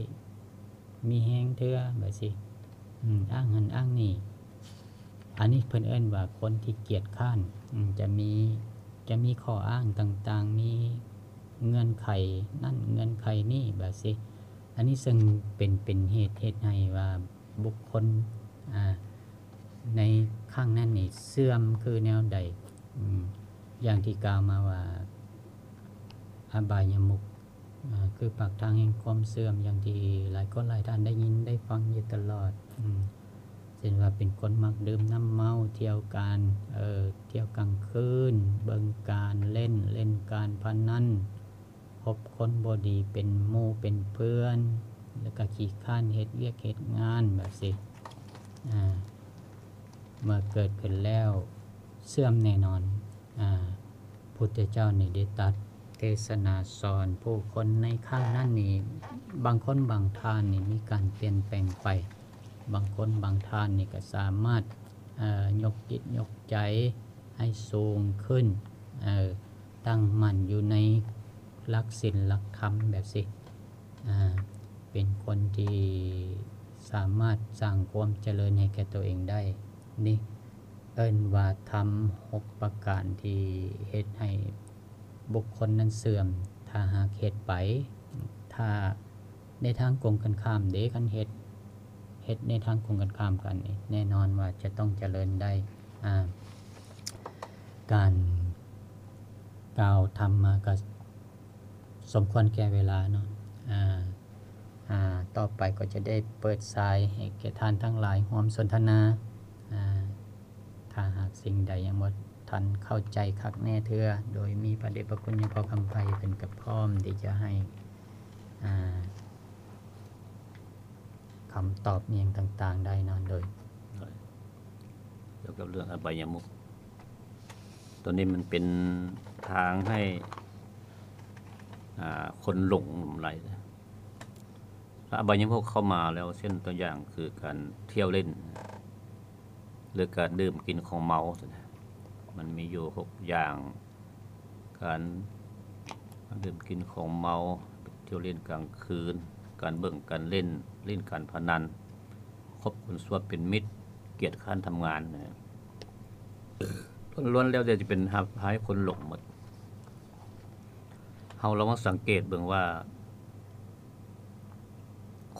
ມີແຮງເທື່ອ ແບບຊີ້. ອາ ອ້າງຫັ້ນອ້າງນີ້ ອັນນີ້ເພິ່ນເອີ້ນວ່າຄົນທີ່ກຽດຄ້ານ ອາ ຈະມີ ຈະມີຂໍ້ອ້າງຕ່າງໆ ມີເງື່ອນໄຂນັ້ນເງື່ອນໄຂນີ້ ແບບຊີ້. ອັນນີ້ເຊິ່ງເປັນ ເປັນເຫດ ເຮັດໃຫ້ວ່າບຸກຄົນ ອາ ໃນຄັ້ງນັ້ນນີ້ເສື່ອມຄືແນວໃດ? ອາ ຢ່າງທີ່ກ່າວມາວ່າ ອະບາຍະມຸກ ອາ ຄືປາກທາງແຫ່ງຄວາມເສື່ອມ ຢ່າງທີ່ຫຼາຍຄົນຫຼາຍທ່ານໄດ້ຍິນໄດ້ຟັງຢູ່ຕະຫຼອດ. ອາ ເຊັ່ນວ່າເປັນຄົນມັກດື່ມນ້ຳເມົາ ທ່ຽວການ ເອີ ທ່ຽວກາງຄືນ ເບິ່ງການເລ່ນ ເລ່ນການພະນັນ ຄົບຄົນບໍ່ດີເປັນໝູ່ເປັນເພື່ອນ ແລ້ວກໍຂີ້ຄ້ານເຮັດວຽກເຮັດງານ ແບບຊີ້. ອາ ເມື່ອເກີດຂຶ້ນແລ້ວເສື່ອມແນ່ນອນ. ອາ ພຸດທະເຈົ້ານີ້ໄດ້ຕັດເທສະນາສອນຜູ້ຄົນໃນຄັ້ງນັ້ນນີ້ ບາງຄົນບາງທ່ານນີ້ມີການປ່ຽນແປງໄປ, ບາງຄົນບາງທ່ານນີ້ກໍສາມາດ ເອີ ຍົກຈິດຍົກໃຈໃຫ້ສູງຂຶ້ນ ເອີ ຕັ້ງໝັ້ນຢູ່ໃນຫຼັກສິນຫຼັກທຳແບບຊີ້ ອາ ເປັນຄົນທີ່ສາມາດສ້າງຄວາມຈະເລີນໃຫ້ແກ່ຕົວເອງໄດ້. ນີ້ເອີ້ນວ່າທຳຫົກປະການທີ່ເຮັດໃຫ້ບຸກຄົນນັ້ນເສື່ອມ ຖ້າຫາກເຮັດໄປ ຖ້າໃນທາງກົງກັນຂ້າມເດ້ ຄັນເຮັດ ເຮັດໃນທາງກົງກັນຂ້າມກັນນີ້ ແນ່ນອນວ່າຈະຕ້ອງຈະເລີນໄດ້. ອາ ການກ່າວທຳມາກໍສົມຄວນແກ່ເວລາເນາະ ອາ ອາ ຕໍ່ໄປກໍຈະໄດ້ເປີດສາຍໃຫ້ແກ່ທ່ານທັງຫຼາຍຮ່ວມສົນທະນາ ອາ ຖ້າຫາກສິ່ງໃດຍັງບໍ່ທັນເຂົ້າໃຈຄັກແນ່ເທື່ອ ໂດຍມີພະເດດພະຄຸນຫຼວງພໍ່ຄຳໄພເພິ່ນກໍພ້ອມທີ່ຈະໃຫ້ ອາ ຄຳຕອບອີ່ຫຍັງຕ່າງໆໄດ້ເນາະ ໂດຍ ໂດຍ ກ່ຽວກັບເລື່ອງອະບາຍະມຸກ ຕົວນີ້ມັນເປັນທາງໃຫ້ ອ່າ ຄົນຫຼົງຫຼາຍ. ອະບາຍະມຸກເຂົ້າມາແລ້ວ ເຊັ່ນຕົວຢ່າງຄືການທ່ຽວຫຼິ້ນ ຫຼືການດື່ມກິນຂອງເມົາ ມັນມີຢູ່ຫົກຢ່າງ ການດື່ມກິນຂອງເມົາ, ທ່ຽວຫຼິ້ນກາງຄືນ, ການເບິ່ງການຫຼິ້ນ, ຫຼິ້ນການພະນັນ, ຄົບຄົນຊົ່ວເປັນມິດ, ກຽດຄ້ານທຳງານ ລ້ວນແລ້ວແຕ່ຈະເປັນຮັບ ພາໃຫ້ຄົນຫຼົງໝົດ. ເຮົາລອງມາສັງເກດເບິ່ງວ່າ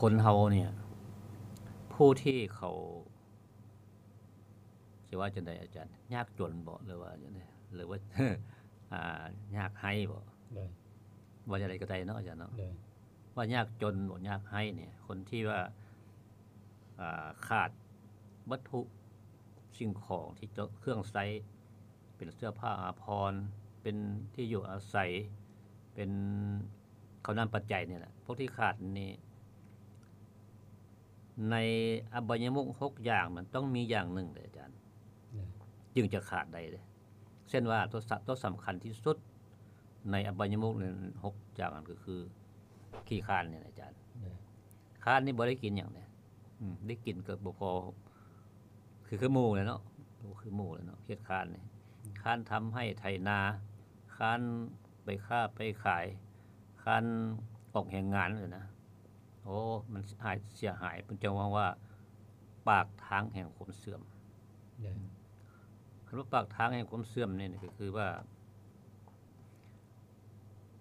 ຄົນເຮົານີ້ ຜູ້ທີ່ເຂົາ ຊິວ່າຈັ່ງໃດອາຈານ ຍາກຈົນບໍ ຫຼືວ່າຈັ່ງໃດ ຫຼືວ່າ ອ່າ ຍາກໄຮ້ບໍ ໂດຍ ວ່າຈັ່ງໃດກໍໄດ້ເນາະອາຈານເນາະ ໂດຍ ວ່າຍາກຈົນບໍ ຍາກໄຮ້ນີ້ ຄົນທີ່ວ່າ ອ່າ ຂາດວັດຖຸສິ່ງຂອງທີ່ເຈົ້າ ເຄື່ອງໃຊ້ ເປັນເສື້ອຜ້າອາພອນ ເປັນທີ່ຢູ່ອາໄສ ເປັນເຂົ້ານ້ຳປັດໄຈນີ້ແຫຼະ ພວກທີ່ຂາດນີ້ ໃນອະບາຍະມຸກຫົກຢ່າງ ມັນຕ້ອງມີຢ່າງໜຶ່ງເດ້ອາຈານ ໂດຍ ຈຶ່ງຈະຂາດໄດ້ເດ້. ເຊັ່ນວ່າ ຕົວສະ ຕົວສຳຄັນທີ່ສຸດໃນອະບາຍະມຸກນັ້ນຫົກຢ່າງນັ້ນ ກໍຄືຂີ້ຄ້ານນີ້ແຫຼະອາຈານ ໂດຍ ຄ້ານນີ້ບໍ່ໄດ້ກິນຫຍັງເດ້ ອືມ ໄດ້ກິນກໍບໍ່ພໍ ຄື ຄືໝູ່ແຫຼະເນາະ ຄືໝູ່ແຫຼະເນາະ ເຮັດຄ້ານນີ້ ອືມ ຄ້ານທຳໄຮ່ໄຖນາ ຄ້ານໄປຄ້າໄປຂາຍ ຄ້ານອອກແຮງງານຫັ້ນນະ. ໂອ້ ມັນເສຍຫາຍ ເພິ່ນຈັ່ງເວົ້າວ່າ ປາກທາງແຫ່ງຄວາມເສື່ອມ ໂດຍ ອືມ ຄຳວ່າປາກທາງແຫ່ງຄວາມເສື່ອມນີ້ ກໍຄືວ່າ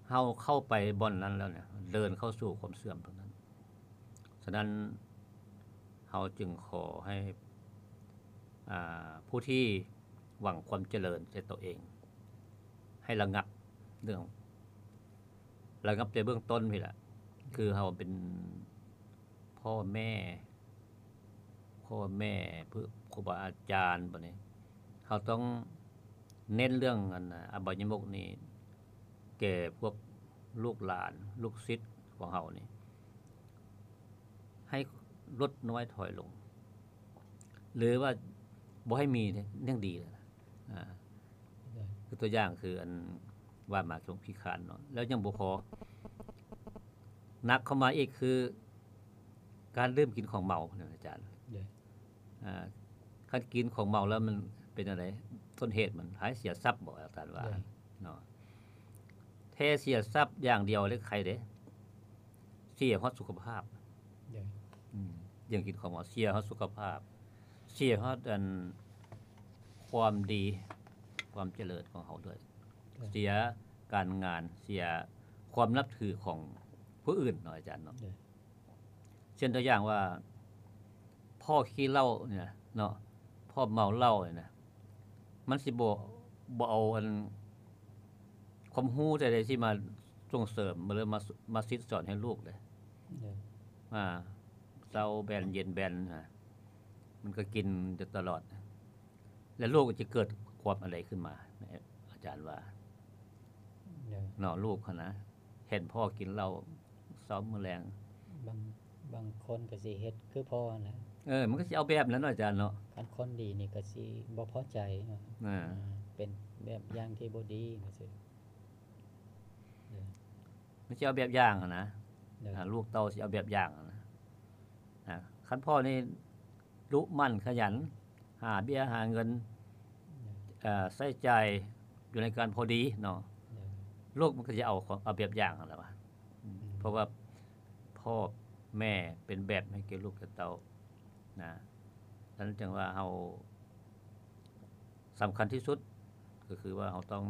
ເຮົາເຂົ້າໄປບ່ອນນັ້ນແລ້ວເນຍ ເດີນເຂົ້າສູ່ຄວາມເສື່ອມຕົງນັ້ນ. ສະນັ້ນ ເຮົາຈຶ່ງຂໍໃຫ້ ອ່າ ຜູ້ທີ່ຫວັງຄວາມຈະເລີນແກ່ຕົວເອງ ໃຫ້ລະງັບເລື່ອງ ລະງັບແຕ່ເບື້ອງຕົ້ນພີ້ແຫຼະ ຄືເຮົາເປັນພໍ່ແມ່ ພໍ່ແມ່ ຄູບາອາຈານ ບັດນີ້ເຮົາຕ້ອງເນັ້ນເລື່ອງ ອັນ ອະບາຍະມຸກນີ້ ແກ່ພວກລູກຫຼານ ລູກສິດຂອງເຮົານີ້ ໃຫ້ລົດນ້ອຍຖອຍລົງ ຫຼືວ່າບໍ່ໃຫ້ມີເດ້ ຍັງດີແລ້ວນະ ອາ ໂດຍ ຄືຕົວຢ່າງຄື ອັນ ວ່າມາເລື່ອງຂີ້ຄ້ານເນາະ ແລ້ວຍັງບໍ່ພໍ ໜັກເຂົ້າມາອີກຄື ການດື່ມກິນຂອງເມົານະອາຈານ ໂດຍ ອ່າ ຄັນກິນຂອງເມົາແລ້ວມັນເປັນຈັ່ງໃດ? ຕົ້ນເຫດມັນໃຫ້ເສຍຊັບບໍ ອາຈານວ່າ ໂດຍ ເນາະ ແທ້ເສຍຊັບຢ່າງດຽວເລີຍໄຄເດ້ ເສຍຮອດສຸຂະພາບ ໂດຍ ອືມ ເລື່ອງກິນຂອງເມົາເສຍຮອດສຸຂະພາບ ເສຍຮອດ ອັນ ຄວາມດີ ຄວາມຈະເລີນຂອງເຮົາດ້ວຍ ໂດຍ ເສຍການງານ ເສຍຄວາມນັບຖືຂອງຜູ້ອື່ນເນາະອາຈານເນາະ ໂດຍ ເຊັ່ນຕົວຢ່າງວ່າ ພໍ່ຂີ້ເຫຼົ້ານີ້ນະເນາະ ພໍ່ເມົາເຫຼົ້ານີ້ນະ ມັນຊິບໍ່ ບໍ່ເອົາອັນ ຄວາມຮູ້ໃດໆຊິມາສົ່ງເສີມ ຫຼືມາ ມາສິດສອນໃຫ້ລູກເດ້ ໂດຍ ອ່າ ເຊົ້າແບນເຢັນແບນນະ ມັນກໍກິນຢູ່ຕະຫຼອດ ແລ້ວລູກຈະເກີດຄວາມອັນໃດຂຶ້ນມາ ອາຈານວ່າ ໂດຍ ເນາະ ລູກຫັ້ນນະ ເຫັນພໍ່ກິນເຫຼົ້າເຊົ້າມື້ແລງ ບາງ ບາງຄົນກໍຊິເຮັດຄືພໍ່ຫັ້ນແຫຼະ ເອີ ມັນກໍຊິເອົາແບບນັ້ນເນາະອາຈານເນາະ ຄັນຄົນດີນີ້ກໍຊິບໍ່ພໍໃຈເນາະ ອ່າ ເປັນແບບຢ່າງທີ່ບໍ່ດີຈັ່ງຊີ້ ມັນຊິເອົາແບບຢ່າງຫັ້ນນະ ໂດຍ ອ່າ ລູກເຕົ້າຊິເອົາແບບຢ່າງຫັ້ນນະ ອ່າ ຄັນພໍ່ນີ້ດຸໝັ່ນຂະຫຍັນ ຫາເບ້ຍຫາເງິນ ໂດຍ ເອີ ໃຊ້ຈ່າຍຢູ່ໃນການພໍດີເນາະ ໂດຍ ລູກມັນກໍຈະເອົາ ເອົາແບບຢ່າງຫັ້ນແຫຼະວ່າ ອືມ ອືມ ເພາະວ່າພໍ່ແມ່ເປັນແບບໃຫ້ແກ່ລູກແກ່ເຕົ້ານະ ສະນັ້ນຈຶ່ງວ່າເຮົາ ສຳຄັນທີ່ສຸດກໍຄືວ່າເຮົາຕ້ອງ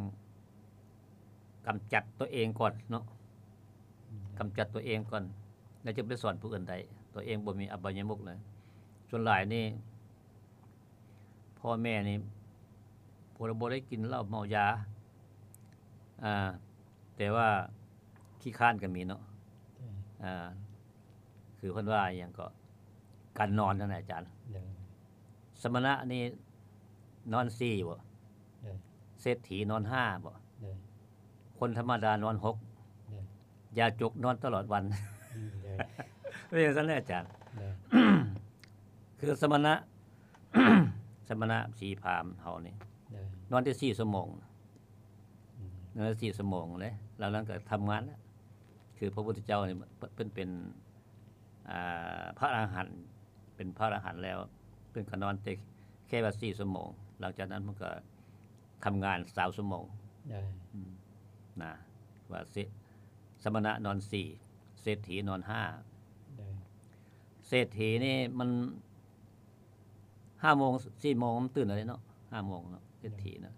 ກຳຈັດຕົວເອງກ່ອນເນາະ ອືມ ກຳຈັດຕົວເອງກ່ອນ ແລ້ວຈຶ່ງໄປສອນຜູ້ອື່ນໄດ້ ຕົວເອງບໍ່ມີອະບາຍະມຸກເລີຍ ສ່ວນຫຼາຍນີ້ ພໍ່ແມ່ນີ້ ບໍ່ ບໍ່ໄດ້ກິນເຫຼົ້າເມົາຢາ ອ່າ ແຕ່ວ່າຂີ້ຄ້ານກໍມີເນາະ ໂດຍ ອ່າ ຄືເພິ່ນວ່າອີ່ຫຍັງເກາະ ການນອນນັ້ນນະອາຈານ ໂດຍ ສະມະນະນີ້ນອນສີ່ບໍ? ໂດຍ ເສດຖີນອນຫ້າບໍ? ໂດຍ ຄົນທຳມະດານອນຫົກ ໂດຍ ຢາຈົກນອນຕະຫຼອດວັນ ອືມ ໂດຍ ເປັນຈັ່ງຊັ້ນແຫຼະອາຈານ ໂດຍ ຄືສະມະນະ ສະມະນະສີພາມເຮົານີ້ ໂດຍ ນອນໄດ້ສີ່ຊົ່ວໂມງ ອືມ ນອນໄດ້ສີ່ຊົ່ວໂມງເດ້ ແລ້ວນັ້ນກໍທຳງານແລ້ວ. ຄືພະພຸດທະເຈົ້ານີ້ເພິ່ນເປັນ ອ່າ ພະອະລະຫັນ ເປັນພະອະລະຫັນແລ້ວ ເພິ່ນກໍນອນແຕ່ແຄ່ວ່າສີ່ຊົ່ວໂມງ ຫຼັງຈາກນັ້ນເພິ່ນກໍທຳງານຊາວຊົ່ວໂມງ ໂດຍ ອືມ ນະ ວ່າເສ ສະມະນະນອນສີ່ ເສດຖີນອນຫ້າ ໂດຍ ເສດຖີນີ້ມັນ ຫ້າໂມງ ສີ່ໂມງມັນຕື່ນແລ້ວເດເນາະ ຫ້າໂມງເນາະ ເສດຖີນະ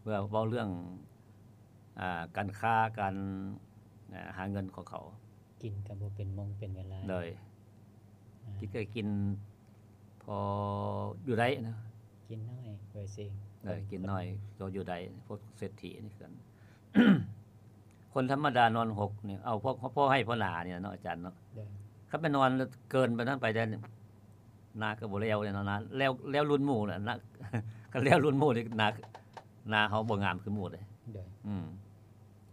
ເພື່ອເວົ້າເລື່ອງ ອ່າ ການຄ້າ ການ ອ່າ ຫາເງິນຂອງເຂົາ ກິນກໍບໍ່ເປັນໂມງເປັນເວລາ ໂດຍ ອ່າ ກິນກໍກິນພໍຢູ່ໄດ້ນະ ກິນໜ້ອຍ ໂດຍຊິ ເອີ ກິນໜ້ອຍກໍຢູ່ໄດ້ ພວກເສດຖີນີ້ຄືກັນ. ຄົນທຳມະດານອນຫົກນີ້ ເອົາພໍ ພໍໃຫ້ພໍໜານີ້ເນາະອາຈານເນາະ ໂດຍ ຄັນໄປນອນເກີນໄປນັ້ນໄປແລ້ວ ນາກໍບໍ່ແລ້ວເນາະ ນາແລ້ວ ແລ້ວລຸນໝູ່ນະ ນາ ຄັນແລ້ວລຸນໝູ່ນີ້ ນາ ນາເຮົາບໍ່ງາມຄືໝູ່ເດ້ ໂດຍ ອືມ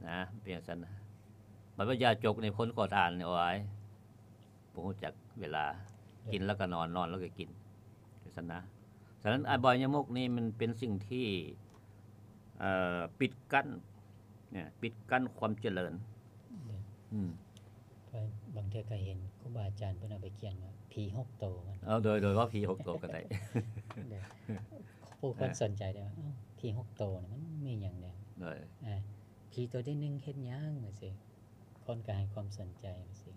ນະ ເປັນຈັ່ງຊັ້ນນະ. ບັດວ່າຢາຈົກນີ້ ຄົນກໍທານນີ້ ໂອ້ຍ ບໍ່ຮູ້ຈັກເວລາ ໂດຍ ກິນແລ້ວກໍນອນ ນອນແລ້ວກໍກິນ ຈັ່ງຊັ້ນນະ. ສະນັ້ນ ອະບາຍະມຸກນີ້ມັນເປັນສິ່ງທີ່ ເອີ ປິດກັ້ນ ນະ ປິດກັ້ນຄວາມຈະເລີນ ໂດຍ ອືມ ເພາະບາງເທື່ອກໍເຫັນຄູບາອາຈານເພິ່ນເອົາໄປຂຽນວ່າຜີຫົກໂຕ ເອີ ໂດຍ ໂດຍ ວ່າຜີຫົກໂຕກໍໄດ້ ໂດຍ ຜູ້ຄົນ ເອີ ສົນໃຈໄດ້ວ່າ ອ້າວ ຜີຫົກໂຕນີ້ມັນມີຫຍັງແດ່ ໂດຍ ອ່າ ຜີໂຕທີໜຶ່ງເຮັດຫຍັງ ຈັ່ງຊີ້ ຄົນກໍໃຫ້ຄວາມສົນໃຈຈັ່ງຊີ້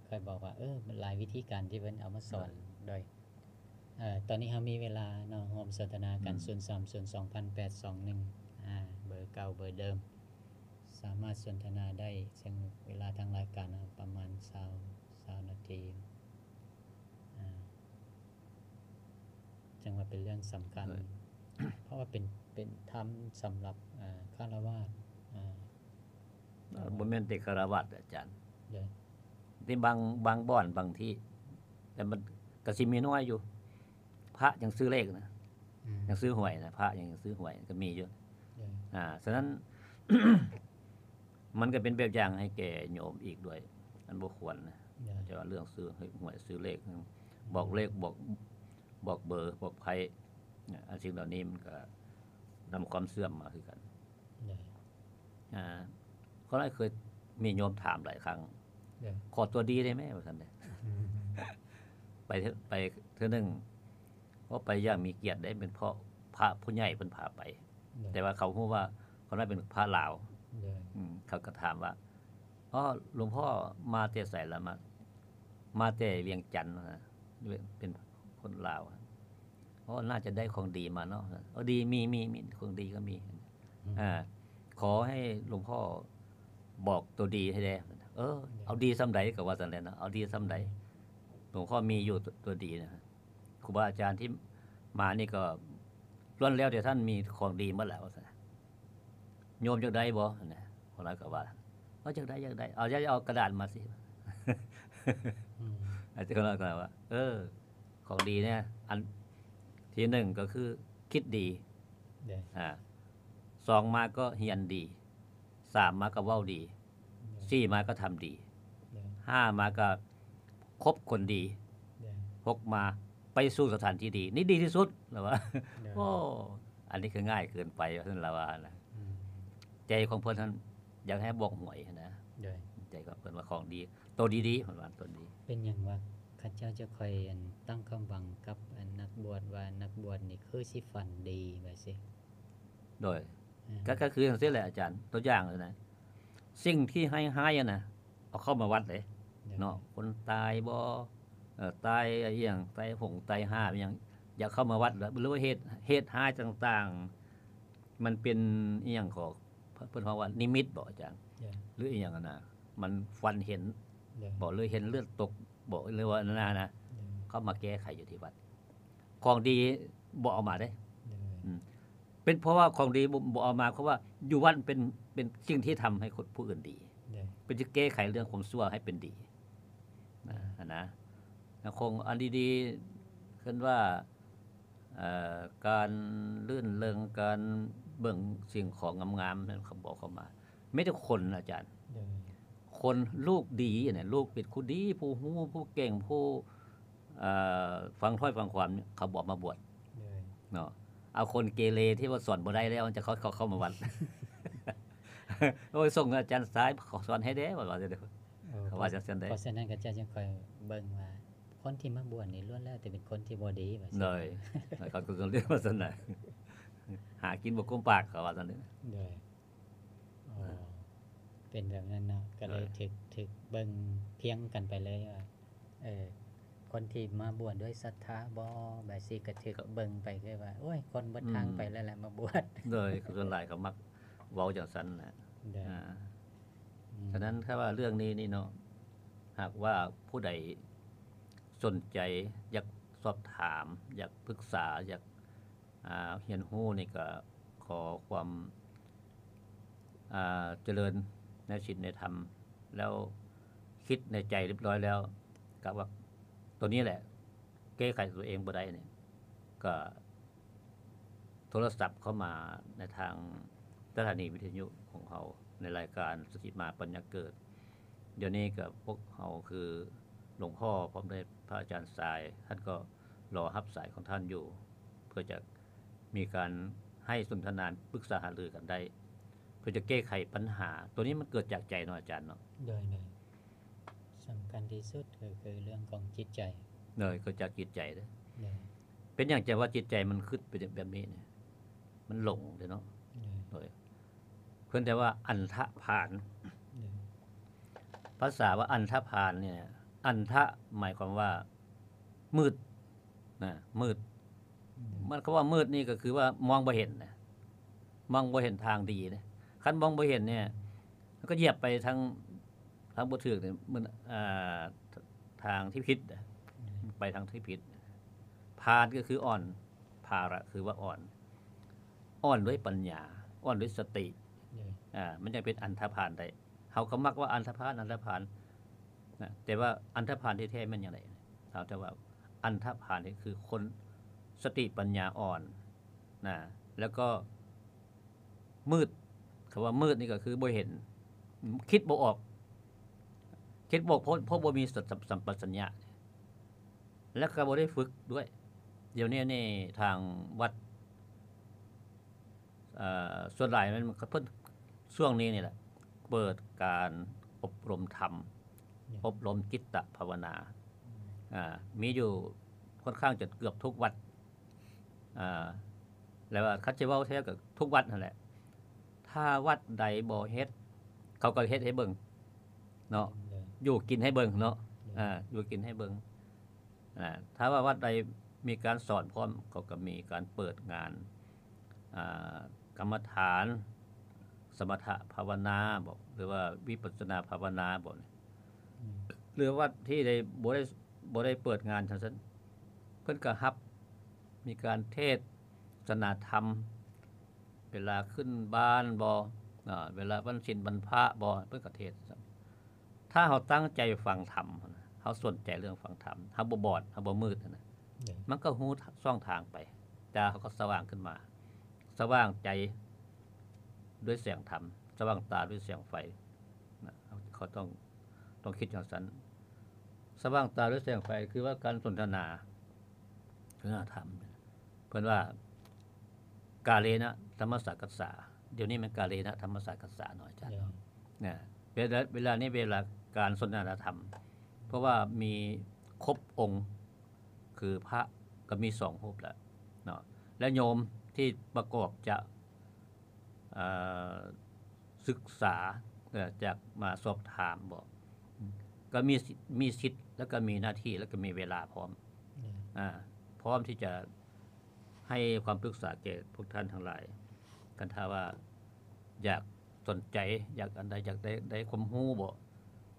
ຂ້ອຍບອກວ່າ ເອີ ມັນຫຼາຍວິທີການທີ່ເພິ່ນເອົາມາສອນ ໂດຍ ໂດຍ ເອີ ຕອນນີ້ເຮົາມີເວລາເນາະ ຮ່ວມສົນທະນາກັນ ອືມ ສູນສາມສູນສອງພັນແປດສອງໜຶ່ງ ອ່າ ເບີເກົ່າເບີເດີມ ສາມາດສົນທະນາໄດ້ ເຊິ່ງເວລາທາງລາຍການເຮົາປະມານຊາວ ຊາວນາທີ ອ່າ ຈັ່ງວ່າເປັນເລື່ອງສຳຄັນ ເອີ ເພາະວ່າເປັນ ເປັນທຳສຳລັບ ອ່າ ຄາລະວາດ ອ່າ ບໍ່ແມ່ນແຕ່ຄາລະວາດ ອາຈານ ໂດຍ ທີ່ບາງ ບາງບ່ອນ ບາງທີ່ ແຕ່ມັນກໍຊິມີນ້ອຍຢູ່ ພະຍັງຊື້ເລກນະ ອືມ ຍັງຊື້ຫວຍນະ ພະຍັງ ຍັງຊື້ຫວຍກໍມີຢູ່ ໂດຍ ອ່າ ສະນັ້ນ ມັນກໍເປັນແບບຢ່າງໃຫ້ແກ່ໂຍມອີກດ້ວຍ ມັນບໍ່ຄວນນະ ໂດຍ ແຕ່ວ່າເລື່ອງຊື້ຫວຍຊື້ເລກ ບອກເລກ ບອກ ບອກເບີ ບອກໄພ້ ອັນສິ່ງເຫຼົ່ານີ້ມັນກໍນຳຄວາມເຊື່ອມມາຄືກັນ ໂດຍ ອ່າ ເຂົາຫຼາຍເຄີຍມີໂຍມຖາມຫຼາຍຄັ້ງ ໂດຍ ຂໍຕົວດີໄດ້ໄໝ ວ່າຊັ້ນເດ້ ອືມ ໄປເທື່ອ ໄປເທື່ອໜຶ່ງ ເພາະໄປຢ່າງມີກຽດເດ້ ເປັນເພາະພະຜູ້ໃຫຍ່ເພິ່ນພາໄປ ໂດຍ ແຕ່ວ່າເຂົາຮູ້ວ່າຄົນນັ້ນເປັນພະລາວ ໂດຍ ອືມ ເຂົາກໍຖາມວ່າ ອໍ ຫຼວງພໍ່ມາແຕ່ໃສລະ? ມາ ມາແຕ່ວຽງຈັນ ວ່າຊັ້ນ ເປັນຄົນລາວ ອໍ ໜ້າຈະໄດ້ຂອງດີມາເນາະ ເອີ ດີ ມີ ມີ ມີ ຂອງດີກໍມີ ອືມ ອ່າ ຂໍໃຫ້ຫຼວງພໍ່ບອກຕົວດີໃຫ້ແດ່ ເອີ ໂດຍ ເອົາດີສ່ຳໃດ ກໍວ່າຊັ້ນແຫຼະເນາະ ເອົາດີສ່ຳໃດ ໂດຍ ຫຼວງພໍ່ມີຢູ່ຕົວ ຕົວດີນະ ຄູບາອາຈານທີ່ມານີ້ກໍລ້ວນແລ້ວແຕ່ທ່ານມີຂອງດີໝົດແລ້ວ ວ່າຊັ້ນ ໂຍມຢາກໄດ້ບໍ່ ນະ ຄົນນັ້ນກໍວ່າ ເອີ ຢາກໄດ້ ຢາກໄດ້ ເອົາ ຢາກ ເອົາກະດາດມາຊິ ອືມ ອາຈານກໍວ່າ ເອີ ຂອງດີເນຍ ອັນທີໜຶ່ງກໍຄືຄິດດີ ໂດຍ ອ່າ ສອງມາກໍຮຽນດີ ສາມມາກໍເວົ້າດີ ໂດຍ ສີ່ມາກໍທຳດີ ໂດຍ ຫ້າມາກໍຄົບຄົນດີ ໂດຍ ຫົກມາໄປສູ່ສະຖານທີ່ດີ ນີ້ດີທີ່ສຸດ ລາວວ່າ ໂດຍ ໂອ້ ອັນນີ້ຄືງ່າຍເກີນໄປ ວ່າຊັ້ນລາວວ່ານະ ອືມ ໃຈຂອງເພິ່ນຫັ້ນຢາກໃຫ້ບອກຫວຍນະ ໂດຍ ໃຈຂອງເພິ່ນວ່າຂອງດີ ໂຕດີໆ ເພິ່ນວ່າໂຕດີ ເປັນຫຍັງວ່າເຂົາເຈົ້າຈະຄ່ອຍ ອັນ ຕັ້ງຄວາມຫວັງກັບ ອັນ ນັກບວດ ວ່ານັກບວດນີ້ຄືຊິຝັນດີ ວ່າຊີ້ ໂດຍ ອ່າ ກໍ ກໍຄືຈັ່ງຊີ້ແຫຼະອາຈານ ຕົວຢ່າງນະ ສິ່ງທີ່ຮ້າຍໆ ຫັ້ນນະ ເອົາເຂົ້າມາວັດເດ້ ໂດຍ ເນາະ ຄົນຕາຍບໍ່ ເອີ ຕາຍອີ່ຫຍັງ ຕາຍຫົງຕາຍຫາບອີ່ຫຍັງ ຢາກເຂົ້າມາວັດ ຫຼືວ່າເຫດ ເຫດຮ້າຍຕ່າງໆ ມັນເປັນອີ່ຫຍັງ ເຂົາ ເພິ່ນເວົ້າວ່ານິມິດບໍອາຈານ ໂດຍ ຫຼືອີ່ຫຍັງຫັ້ນນະ ມັນຝັນເຫັນ ໂດຍ ບໍ ຫຼືເຫັນເລືອດຕົກບໍ ຫຼືວ່ານັ້ນນະ ໂດຍ ເຂົາມາແກ້ໄຂຢູ່ທີ່ວັດ ຂອງດີບໍ່ເອົາມາເດ້ ໂດຍ ອືມ ເປັນເພາະວ່າຂອງດີບໍ່ ບໍ່ເອົາມາ ເພາະວ່າຢູ່ວັດເປັນ ເປັນສິ່ງທີ່ທຳໃຫ້ຄົນຜູ້ອື່ນດີ ໂດຍ ເປັນຊິແກ້ໄຂເລື່ອງຄວາມຊົ່ວໃຫ້ເປັນດີ ນະ ຫັ້ນນະ ແລ້ວຂອງອັນດີໆ ເອີ້ນວ່າ ເອີ ການລື່ນເລິງ ການເບິ່ງສິ່ງຂອງງາມໆ ນັ້ນເຂົາບໍ່ເຂົ້າມາ ມີແຕ່ຄົນອາຈານ ໂດຍ ຄົນ ລູກດີນະ ລູກເປັນຄົນດີ ຜູ້ຮູ້ ຜູ້ເກັ່ງ ຜູ້ ເອີ ຟັງຖ້ອຍຟັງຄວາມ ເຂົາບໍ່ມາບວດ ໂດຍ ເນາະ ເອົາຄົນເກເລທີ່ວ່າສອນບໍ່ໄດ້ແລ້ວ ມັນຈະເຂົ້າ ເຂົ້າ ເຂົ້າມາວັດ ໂອ້ຍ ສົ່ງອາຈານຊາຍສອນໃຫ້ແດ່ ວ່າ ວ່າ ເຂົາວ່າຈັ່ງຊັ້ນເດ້. ເພາະສະນັ້ນຂະເຈົ້າຈຶ່ງຄ່ອຍເບິ່ງວ່າ ຄົນທີ່ມາບວດນີ້ລ້ວນແລ້ວແຕ່ເປັນຄົນທີ່ບໍ່ດີ ວ່າຊັ້ນ. ໂດຍ ເຂົາກໍເອີ້ນວ່າຊັ້ນນະ ຫາກິນບໍ່ກຸ້ມປາກ ເຂົາວ່າຊັ້ນເດ້. ໂດຍ ອໍ ເປັນແບບນັ້ນເນາະ ກໍເລີຍ ໂດຍ ຖືກ ຖືກເບິ່ງພຽງກັນໄປເລີຍວ່າ ເອີ ຄົນທີ່ມາບວດດ້ວຍສັດທາບໍ ແບບຊີ້ກໍຖືກເບິ່ງໄປຄືວ່າ ໂອ້ຍ ຄົນເບິດທາງໄປແລ້ວແຫຼະມາບວດ. ໂດຍ ສ່ວນຫຼາຍເຂົາມັກເວົ້າຈັ່ງຊັ້ນນະ. ໂດຍ ອາ ອືມ ສະນັ້ນຖ້າວ່າເລື່ອງນີ້ນີ້ເນາະ ຫາກວ່າຜູ້ໃດສົນໃຈ ຢາກສອບຖາມ ຢາກປຶກສາ ຢາກ ອາ ຮຽນຮູ້ນີ້ກໍຂໍຄວາມ ອາ ຈະເລີນໃນສິນໃນທຳ ແລ້ວຄິດໃນໃຈຮຽບຮ້ອຍແລ້ວ ກະວ່າໂຕນີ້ແຫຼະແກ້ໄຂຕົວເອງບໍ່ໄດ້ນີ້ ກະໂທລະສັບເຂົ້າມາໃນທາງສະຖານີວິທະຍຸຂອງເຮົາ ໃນລາຍການສະທິມາປັນຍາເກີດ. ດຽວນີ້ກໍພວກເຮົາຄືຫຼວງພໍ່ພ້ອມດ້ວຍພະອາຈານຊາຍ ທ່ານກໍລໍຮັບສາຍຂອງທ່ານຢູ່ ເພື່ອຈະມີການໃຫ້ສົນທະນາປຶກສາຫາລືກັນໄດ້ ເພື່ອຈະແກ້ໄຂບັນຫາ. ໂຕນີ້ມັນເກີດຈາກໃຈເນາະອາຈານເນາະ. ໂດຍ ໂດຍ ສຳຄັນທີ່ສຸດກໍຄືເລື່ອງຂອງຈິດໃຈ. ໂດຍ ເກີດຈາກຈິດໃຈເດ້. ໂດຍ ເປັນຫຍັງຈັ່ງວ່າຈິດໃຈມັນຄຶດໄປແບບນີ້ນີ້? ມັນຫຼົງເດ້ເນາະ. ໂດຍ ໂດຍ ເພິ່ນເອີ້ນວ່າອັນທະພານ. ໂດຍ ພາສາວ່າອັນທະພານນີ້ ອັນທະໝາຍຄວາມວ່າມືດນະ ມືດ. ໂດຍ ມັນ ຄຳວ່າມືດນີ້ກໍຄືວ່າມອງບໍ່ເຫັນນະ ມອງບໍ່ເຫັນທາງດີນະ. ຄັນມອງບໍ່ເຫັນນີ້ ມັນກໍຢຽບໄປທາງ ທາງບໍ່ຖືກນີ້ ມັນ ອ່າ ທາງທີ່ຜິດນະ. ໂດຍ ໄປທາງທີ່ຜິດ. ພານກໍຄືອ່ອນ ພາລະຄືວ່າອ່ອນ ອ່ອນດ້ວຍປັນຍາ ອ່ອນດ້ວຍສະຕິ. ໂດຍ ອ່າ ມັນຈັ່ງເປັນອັນທະພານໄດ້. ເຮົາກໍມັກວ່າອັນທະພານ ອັນທະພານນະ ແຕ່ວ່າອັນທະພານທີ່ແທ້ແມ່ນຫຍັງໃດ? ເຮົາຈະວ່າອັນທະພານນີ້ຄືຄົນສະຕິປັນຍາອ່ອນນະ ແລ້ວກໍມືດ. ຄຳວ່າມືດນີ້ກໍຄືບໍ່ເຫັນ ຄິດບໍ່ອອກ ຄິດບໍ່ ເພາະ ເພາະບໍ່ມີສະ ສຳ ສຳປະສັນຍະ ແລ້ວກໍບໍ່ໄດ້ຝຶກດ້ວຍ. ດຽວນີ້ນີ້ທາງວັດ ເອີ ສ່ວນຫຼາຍແມ່ນເພິ່ນ ຊ່ວງນີ້ນີ້ແຫຼະ ເປີດການອົບຮົມທຳ ໂດຍ ອົບຮົມຈິດຕະພາວະນາ. ອືມ ອ່າ ມີຢູ່ຄ່ອນຂ້າງຈະເກືອບທຸກວັດ ອ່າ ແລ້ວວ່າຄັນຊິເວົ້າແທ້ກໍທຸກວັດຫັ້ນແຫຼະ. ຖ້າວັດໃດບໍ່ເຮັດ ເຂົາກໍເຮັດໃຫ້ເບິ່ງເນາະ. ໂດຍ ຢູ່ກິນໃຫ້ເບິ່ງເນາະ. ໂດຍ ອ່າ ຢູ່ກິນໃຫ້ເບິ່ງ. ອ່າ ຖ້າວ່າວັດໃດມີການສອນພ້ອມ ເຂົາກໍມີການເປີດງານ ອ່າ ກຳມະຖານ ສະມະຖະພາວະນາບໍ ຫຼືວ່າວິປັດສະນາພາວະນາບໍນີ້. ອືມ ຫຼືວັດທີ່ໄດ້ ບໍ່ໄດ້ ບໍ່ໄດ້ເປີດງານຈັ່ງຊັ້ນ ເພິ່ນກໍຮັບ ມີການເທດສະນາທຳ ເວລາຂຶ້ນບ້ານບໍ ອາ ເວລາວັນສິນວັນພະບໍ ເພິ່ນກໍເທດ. ຖ້າເຮົາຕັ້ງໃຈຟັງທຳ ເຮົາສົນໃຈເລື່ອງຟັງທຳ ເຮົາບໍ່ບອດ ເຮົາບໍ່ມືດຫັ້ນນະ ໂດຍ ມັນກໍຮູ້ຊ່ອງທາງໄປ. ຕາເຮົາກໍສະຫວ່າງຂຶ້ນມາ ສະຫວ່າງໃຈດ້ວຍແສງທຳ ສະຫວ່າງຕາດ້ວຍແສງໄຟນະ. ເຮົາ ເຮົາຕ້ອງ ຕ້ອງຄິດຈັ່ງຊັ້ນ. ສະຫວ່າງຕາດ້ວຍແສງໄຟ ຄືວ່າການສົນທະນາ ສນທະນາທຳ ເພິ່ນວ່າ ກາເລນະທຳມະສາກັດສາ. ດຽວນີ້ແມ່ນກາເລນະທຳມະສາກັດສາເນາະອາຈານເນາະ. ເວລາ ເວລານີ້ເວລາການສົນທະນາທຳ ເພາະວ່າມີຄົບອົງ ຄືພະກໍມີສອງຮູບແລ້ວເນາະ ແລະໂຍມທີ່ປະກອບຈະ ເອີ ສຶກສາ ເອີ ຈາກມາສອບຖາມບໍ ກໍມີ ມີສິດ ແລ້ວກໍມີໜ້າທີ່ ແລ້ວກໍມີເວລາພ້ອມ ອືມ ອາ ພ້ອມທີ່ຈະໃຫ້ຄວາມປຶກສາແກ່ພວກທ່ານທັງຫຼາຍ. ຄັນຖ້າວ່າຢາກສົນໃຈ ຢາກອັນໃດ ຢາກໄດ້ ໄດ້ຄວາມຮູ້ບໍ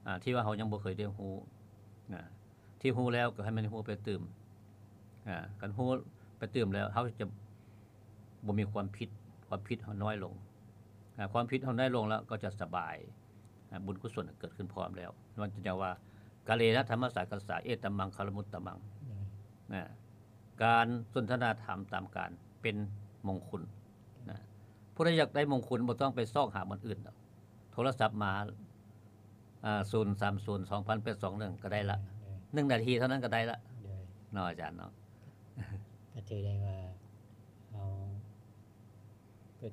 ອາ ທີ່ວ່າເຮົາຍັງບໍ່ເຄີຍໄດ້ຮູ້ນະ ທີ່ຮູ້ແລ້ວກໍໃຫ້ມັນຮູ້ໄປຕື່ມ ອາ ຄັນຮູ້ໄປຕື່ມແລ້ວ ເຮົາຈະບໍ່ມີຄວາມຜິດ ຄວາມຜິດເຮົານ້ອຍລົງ ອາ ຄວາມຜິດເຮົານ້ອຍລົງແລ້ວກໍຈະສະບາຍ ອາ ບຸນກຸສົນເກີດຂຶ້ນພ້ອມແລ້ວ. ມັນຈຶ່ງວ່າ ກາເລນະທຳມະສາກັດສາ ເອຕະມັງຄະລະມຸດຕະມັງ ອືມ ນະ ການສົນທະນາທຳຕາມການເປັນມົງຄຸນນະ. ຜູ້ໃດຢາກໄດ້ມົງຄຸນບໍ່ຕ້ອງໄປຊອກຫາບ່ອນອື່ນດອກ ໂທລະສັບມາ ອາ ສູນສາມສູນສອງພັນແປດສອງໜຶ່ງ ກໍໄດ້ລະ ໂດຍ ໜຶ່ງນາທີເທົ່ານັ້ນກໍໄດ້ລະ ໂດຍ ເນາະອາຈານເນາະ. ກໍຖືໄດ້ວ່າ ເຮົາ ກໍ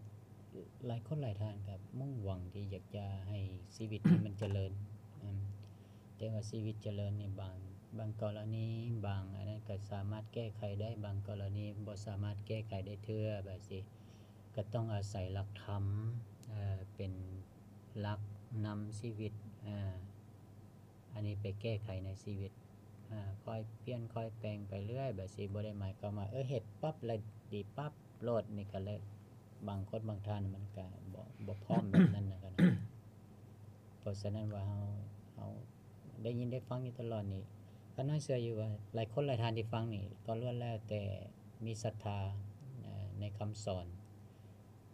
ຫຼາຍຄົນຫຼາຍທ່ານກໍມຸ່ງຫວັງທີ່ຢາກຈະໃຫ້ຊີວິດນີ້ມັນຈະເລີນ ອືມ ແຕ່ວ່າຊີວິດຈະເລີນນີ້ ບາງ ບາງກໍລະນີ ບາງອັນນັ້ນກໍສາມາດແກ້ໄຂໄດ້, ບາງກໍລະນີບໍ່ສາມາດແກ້ໄຂໄດ້ເທື່ອ ແບບຊີ້ ກໍຕ້ອງອາໄສຫຼັກທຳ ເອີ ເປັນຫຼັກນຳຊີວິດ ອາ ອັນນີ້ໄປແກ້ໄຂໃນຊີວິດ ອາ ຄ່ອຍປ່ຽນຄ່ອຍແປງໄປເລື້ອຍ ແບບຊີ້ ບໍ່ໄດ້ໝາຍຄວາມວ່າ ເອີ ເຮັດປັບແລ້ວດີປັບໂລດ ນີ້ກໍແລ້ວ ບາງຄົນບາງທ່ານມັນກໍບໍ່ ບໍ່ພ້ອມແບບນັ້ນນະ ເພາະສະນັ້ນວ່າເຮົາ ເຮົາໄດ້ຍິນໄດ້ຟັງຢູ່ຕະຫຼອດນີ້ ຂ້ານ້ອຍເຊື່ອຢູ່ວ່າຫຼາຍຄົນຫຼາຍທ່ານທີ່ຟັງນີ້ ກໍລ້ວນແລ້ວແຕ່ມີສັດທາ ເອີ ໃນຄຳສອນ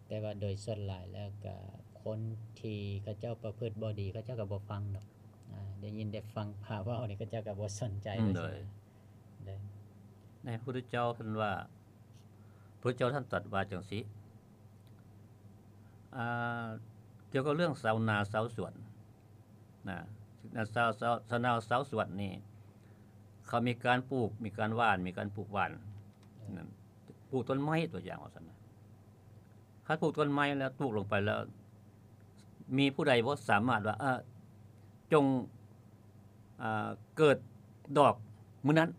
ແຕ່ວ່າໂດຍສ່ວນຫຼາຍແລ້ວກະຄົນທີ່ເຂົາເຈົ້າປະພຶດບໍ່ດີ ເຂົາເຈົ້າກໍບໍ່ຟັງດອກ ອາ ໄດ້ຍິນໄດ້ຟັງພະເວົ້ານີ້ ເຂົາເຈົ້າກໍບໍ່ສົນໃຈ ອືມ ໂດຍ ໂດຍ ໃນພະພຸດທະເຈົ້າເພິ່ນວ່າ ພະພຸດທະເຈົ້າທ່ານຕັດວ່າຈັ່ງຊີ້ ອາ ກ່ຽວກັບເລື່ອງຊາວນາຊາວສວນ ນະ ຊາວ ຊາວ ຊາວນາຊາວສວນນີ້ ເຂົາມີການປູກ ມີການຫວ່ານ ມີການປູກຫວ່ານ ເອີ ນັ້ນ ປູກຕົ້ນໄມ້ຕົວຢ່າງວ່າຊັ້ນນະ ຄັນປູກຕົ້ນໄມ້ແລ້ວ ປູກລົງໄປແລ້ວ ມີຜູ້ໃດບໍ່ສາມາດວ່າ ເອີ ຈົ່ງ ອ່າ ເກີດດອກມື້ນັ້ນ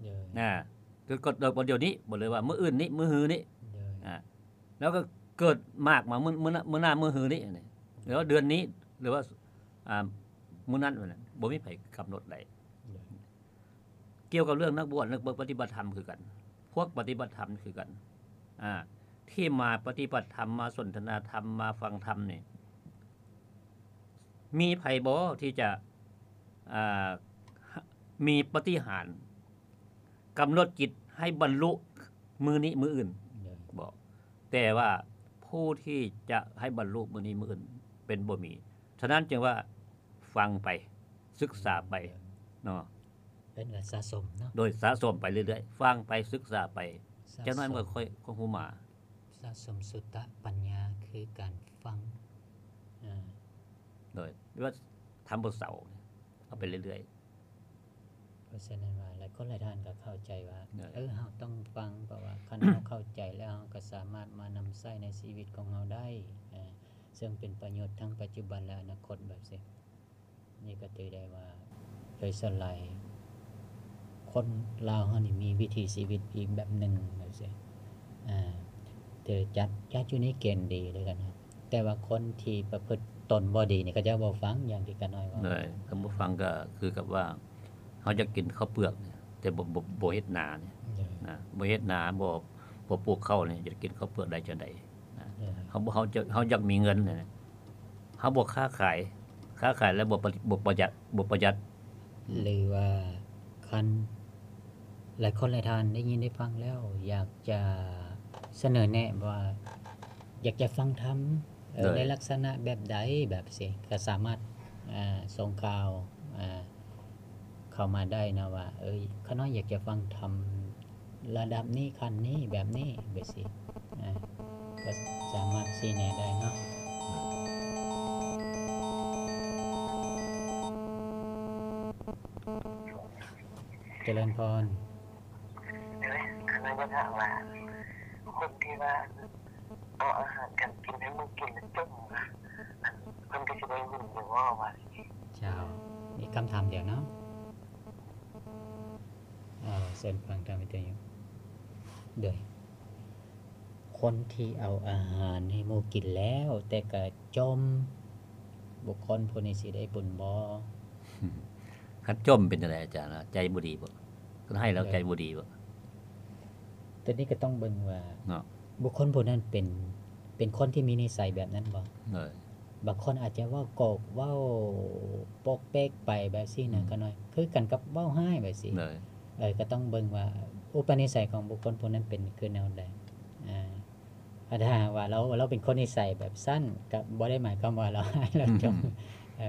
ເອີ ນະ ເກີດ ເກີດດອກບໍ່ດຽວນີ້ ບໍ່ເລີຍວ່າມື້ອື່ນນີ້ ມື້ຮືນີ້ ເອີ ນະ ແລ້ວກໍເກີດໝາກມາມື້ ມື້ໜ້າ ມື້ໜ້າມື້ຮືນີ້ ຫຼືວ່າເດືອນນີ້ ຫຼືວ່າ ອ່າ ມື້ນັ້ນ ບໍ່ມີໃຜກຳນົດໄດ້. ກ່ຽວກັບເລື່ອງນັກບວດ ນັກປະຕິບັດທຳຄືກັນ ພວກປະຕິບັດທຳຄືກັນ ອ່າ ທີ່ມາປະຕິບັດທຳ ມາສົນທະນາທຳ ມາຟັງທຳນີ້ ມີໃຜບໍ່ທີ່ຈະ ອ່າ ມີປະຕິຫານ ກຳນົດຈິດໃຫ້ບັນລຸມື້ນີ້ມື້ອື່ນ ບໍ່ ແຕ່ວ່າຜູ້ທີ່ຈະໃຫ້ບັນລຸມື້ນີ້ມື້ອື່ນເປັນບໍ່ມີ. ສະນັ້ນຈຶ່ງວ່າຟັງໄປ ສຶກສາໄປເນາະ ເອີ້ນວ່າສະສົມເນາະ ໂດຍສະສົມໄປເລື້ອຍໆ ຟັງໄປ ສຶກສາໄປ ຈັກໜ້ອຍມັນກໍຄ່ອຍ ຄ່ອຍຮູ້ມາ. ສະສົມສຸຕະປັນຍາຄືການຟັງ ອາ ໂດຍ ຫຼືວ່າທຳບໍ່ເຊົາ ເອົາໄປເລື້ອຍໆ. ເພາະສະນັ້ນວ່າ ຫຼາຍຄົນຫຼາຍທ່ານກໍເຂົ້າໃຈວ່າ ເອີ ເຮົາຕ້ອງຟັງ ເພາະວ່າຄັນເຮົາເຂົ້າໃຈແລ້ວ ເຮົາກໍສາມາດມານຳໃຊ້ໃນຊີວິດຂອງເຮົາໄດ້ ເຊິ່ງເປັນປະໂຫຍດທັງປັດຈຸບັນ ແລະ ອະນາຄົດ ແບບຊີ້. ນີ້ກໍຖືໄດ້ວ່າ ໂດຍສ່ວນຫຼາຍ ຄົນລາວເຮົານີ້ມີວິຖີຊີວິດອີກແບບໜຶ່ງ ແບບຊີ້ ອາ ຖືຈັດ ຈັດຢູ່ໃນເກນດີເດ້ກັນ ແຕ່ວ່າຄົນທີ່ປະພຶດຕົນບໍ່ດີນີ້ ເຂົາເຈົ້າບໍ່ຟັງ ຢ່າງທີ່ກະນ້ອຍເວົ້າ ເອີ ຄັນບໍ່ຟັງກໍຄືກັບວ່າ ເຮົາຢາກກິນເຂົ້າເປືອກ ແຕ່ບໍ່ ບໍ່ ບໍ່ເຮັດນານີ້ ນະ ບໍ່ເຮັດນາ ບໍ່ ບໍ່ປູກເຂົ້ານີ້ ຈະກິນເຂົ້າເປືອກໄດ້ຈັ່ງໃດ ນະ ເຮົາ ເຮົາ ເຮົາຢາກມີເງິນ ເຮົາບໍ່ຄ້າຂາຍ ຄ້າຂາຍແລ້ວບໍ່ປະ ບໍ່ປະຢັດ ບໍ່ປະຢັດ ຫຼືວ່າຄັນຫຼາຍຄົນຫຼາຍທ່ານໄດ້ຍິນໄດ້ຟັງແລ້ວ ຢາກຈະສະເໜີແນະວ່າ ຢາກຈະຟັງທຳ ເອີ ໃນລັກສະນະແບບໃດ ແບບຊີ້ ກໍສາມາດ ອາ ສົ່ງຂ່າວ ອາ ເຂົ້າມາໄດ້ນະວ່າ ເອີ ຂ້ານ້ອຍຢາກຈະຟັງທຳລະດັບນີ້ ຂັ້ນນີ້ ແບບນີ້ ແບບຊີ້ ອາ ກໍສາມາດຊີ້ແນະໄດ້ເນາະ. ຈະເລີນພອນ. ເອີຍ ຂ້ານ້ອຍຢາກຖາມວ່າ ຄົນທີ່ວ່າເອົາອາຫານການກິນໃຫ້ໝູ່ກິນແລ້ວຈົ່ມນະ ເພິ່ນກໍຊິໄດ້ບຸນຢູ່ບໍ່ວ່າ? ເຈົ້າ ອີກຄຳຖາມດຽວເນາະ. ເອີ ເຊີນຟັງທາງວິທະຍຸ. ໂດຍ ຄົນທີ່ເອົາອາຫານໃຫ້ໝູ່ກິນແລ້ວ ແຕ່ກະຈົ່ມ ບຸກຄົນຜູ້ນີ້ຊິໄດ້ບຸນບໍ່? ຄັນຈົ່ມເປັນຈັ່ງໃດອາຈານ? ໃຈບໍ່ດີບໍ່? ຄັນໃຫ້ແລ້ວໃຈບໍ່ດີບໍ່? ໂດຍ ໂຕນີ້ກໍຕ້ອງເບິ່ງວ່າ ເນາະ ບຸກຄົນຜູ້ນັ້ນເປັນ ເປັນຄົນທີ່ມີນິໄສແບບນັ້ນບໍ່? ໂດຍ ບາງຄົນອາດຈະເວົ້າໂກກ ເວົ້າປົກເປັກໄປແບບຊີ້ນະ ອືມ ຂະນ້ອຍ ຄືກັນກັບເວົ້າຮ້າຍແບບຊີ້ ໂດຍ ເອີ ກໍຕ້ອງເບິ່ງວ່າອຸປະນິໄສຂອງບຸກຄົນຜູ້ນັ້ນເປັນຄືແນວໃດ ອາ ຖ້າຫາກວ່າລາວ ລາວເປັນຄົນນິໄສແບບຊັ້ນ ກໍບໍ່ໄດ້ໝາຍຄວາມວ່າລາວຮ້າຍ ລາວຈົ່ມ ອືມ ເອີ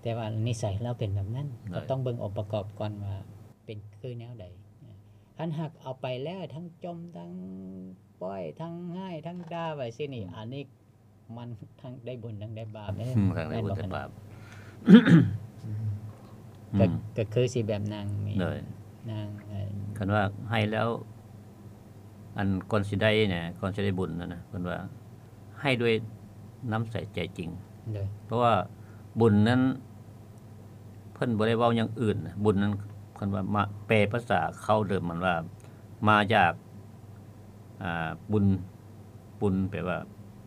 ແຕ່ວ່ານິໄສລາວເປັນແບບນັ້ນ ໂດຍ ກໍຕ້ອງເບິ່ງອົງປະກອບກ່ອນວ່າເປັນຄືແນວໃດ ຄັນຫາກເອົາໄປແລ້ວທັງຈົ່ມ ທັງປ້ອຍ ທັງຮ້າຍ ທັງດ່າໄປຊີ້ນີ້ ອືມ ອັນນີ້ ມັນທັງໄດ້ບຸນທັງໄດ້ບາບເດ້ ອືມ ທັງໄດ້ບຸນທັງບາບ ແມ່ນບໍ່? ອືມ ກໍ ອືມ ກໍຄືຊິແບບນາງນີ້ ໂດຍ ນາງ ເອີ ຄັນວ່າໃຫ້ແລ້ວ ອັນກ່ອນຊິໄດ້ນະ ກ່ອນຊິໄດ້ບຸນນັ້ນນະ ເພິ່ນວ່າໃຫ້ດ້ວຍນ້ຳໃສໃຈຈິງ. ໂດຍ ເພາະວ່າບຸນນັ້ນ ເພິ່ນບໍ່ໄດ້ເວົ້າຫຍັງອື່ນນະ ບຸນນັ້ນ ເພິ່ນວ່າມາ ແປພາສາເຄົ້າເດີມມັນວ່າມາຈາກ ອ່າ ບຸນ ປຸນ ແປວ່າ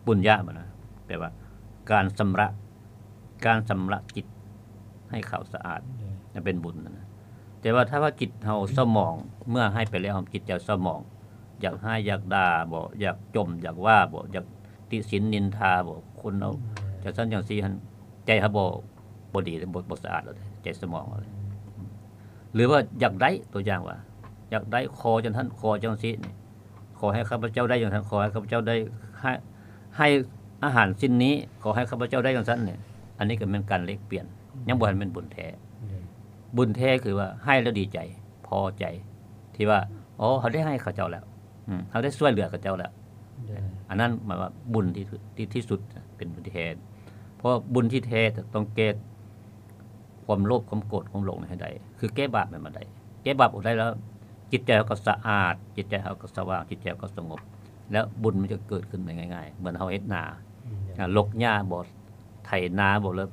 ປຸນຍະ ແມ່ນນະ ແປວ່າການຊຳລະ ການຊຳລະຈິດໃຫ້ຂາວສະອາດ ໂດຍ ນັ້ນເປັນບຸນນະ. ແຕ່ວ່າຖ້າວ່າຈິດເຮົາເສົ້າໝອງ ເມື່ອໃຫ້ໄປແລ້ວ ຈິດໃຈເສົ້າໝອງ ຢາກຮ້າຍຢາກດ່າບໍ ຢາກຈົ່ມຢາກວ່າບໍ ຢາກຕິສິນນິນທາບໍ ຄົນເຮົາ ອືມ ຈັ່ງຊັ້ນຈັ່ງຊີ້ຫັ້ນ ໃຈເຮົາບໍ່ ບໍ່ດີເດ້ ບໍ່ ບໍ່ສະອາດແລ້ວເດ້ ໃຈສະໝອງເຮົາເດ້. ອືມ ຫຼືວ່າຢາກໄດ້ ຕົວຢ່າງວ່າ ຢາກໄດ້ ຂໍຈັ່ງຊັ້ນ ຂໍຈັ່ງຊີ້ນີ້ ຂໍໃຫ້ຂ້າພະເຈົ້າໄດ້ຈັ່ງຊັ້ນ ຂໍໃຫ້ຂ້າພະເຈົ້າໄດ້ ໃຫ້ ໃຫ້ອາຫານສິ່ງນີ້ ຂໍໃຫ້ຂ້າພະເຈົ້າໄດ້ຈັ່ງຊັ້ນນີ້ ອັນນີ້ກໍແມ່ນການແລກປ່ຽນ ອືມ ຍັງບໍ່ທັນແມ່ນບຸນແທ້. ອືມ ບຸນແທ້ຄືວ່າໃຫ້ແລ້ວດີໃຈ ພໍໃຈ ທີ່ວ່າ ອໍ ເຮົາໄດ້ໃຫ້ເຂົາເຈົ້າແລ້ວ ອືມ ເຮົາໄດ້ຊ່ວຍເຫຼືອເຂົາເຈົ້າແລ້ວ. ໂດຍ ອັນນັ້ນໝາຍວ່າບຸນທີ່ ທີ່ ທີ່ສຸດ ເປັນບຸນທີ່ແທ້ ເພາະບຸນທີ່ແທ້ຕ້ອງແກ້ຄວາມໂລບ ຄວາມໂກດ ຄວາມຫຼົງໃຫ້ໄດ້ ຄືແກ້ບາບໃຫ້ມັນໄດ້ ແກ້ບາບອອກໄດ້ແລ້ວ ຈິດໃຈເຮົາກໍສະອາດ ຈິດໃຈເຮົາກໍສະຫວ່າງ ຈິດໃຈເຮົາກໍສະຫງົບ ແລ້ວບຸນມັນຈະເກີດຂຶ້ນໄດ້ງ່າຍໆ ເໝືອນເຮົາເຮັດນາ ອືມ ອ່າ ລົກຫຍ້າບໍ ໄຖນາບໍ ແລ້ວ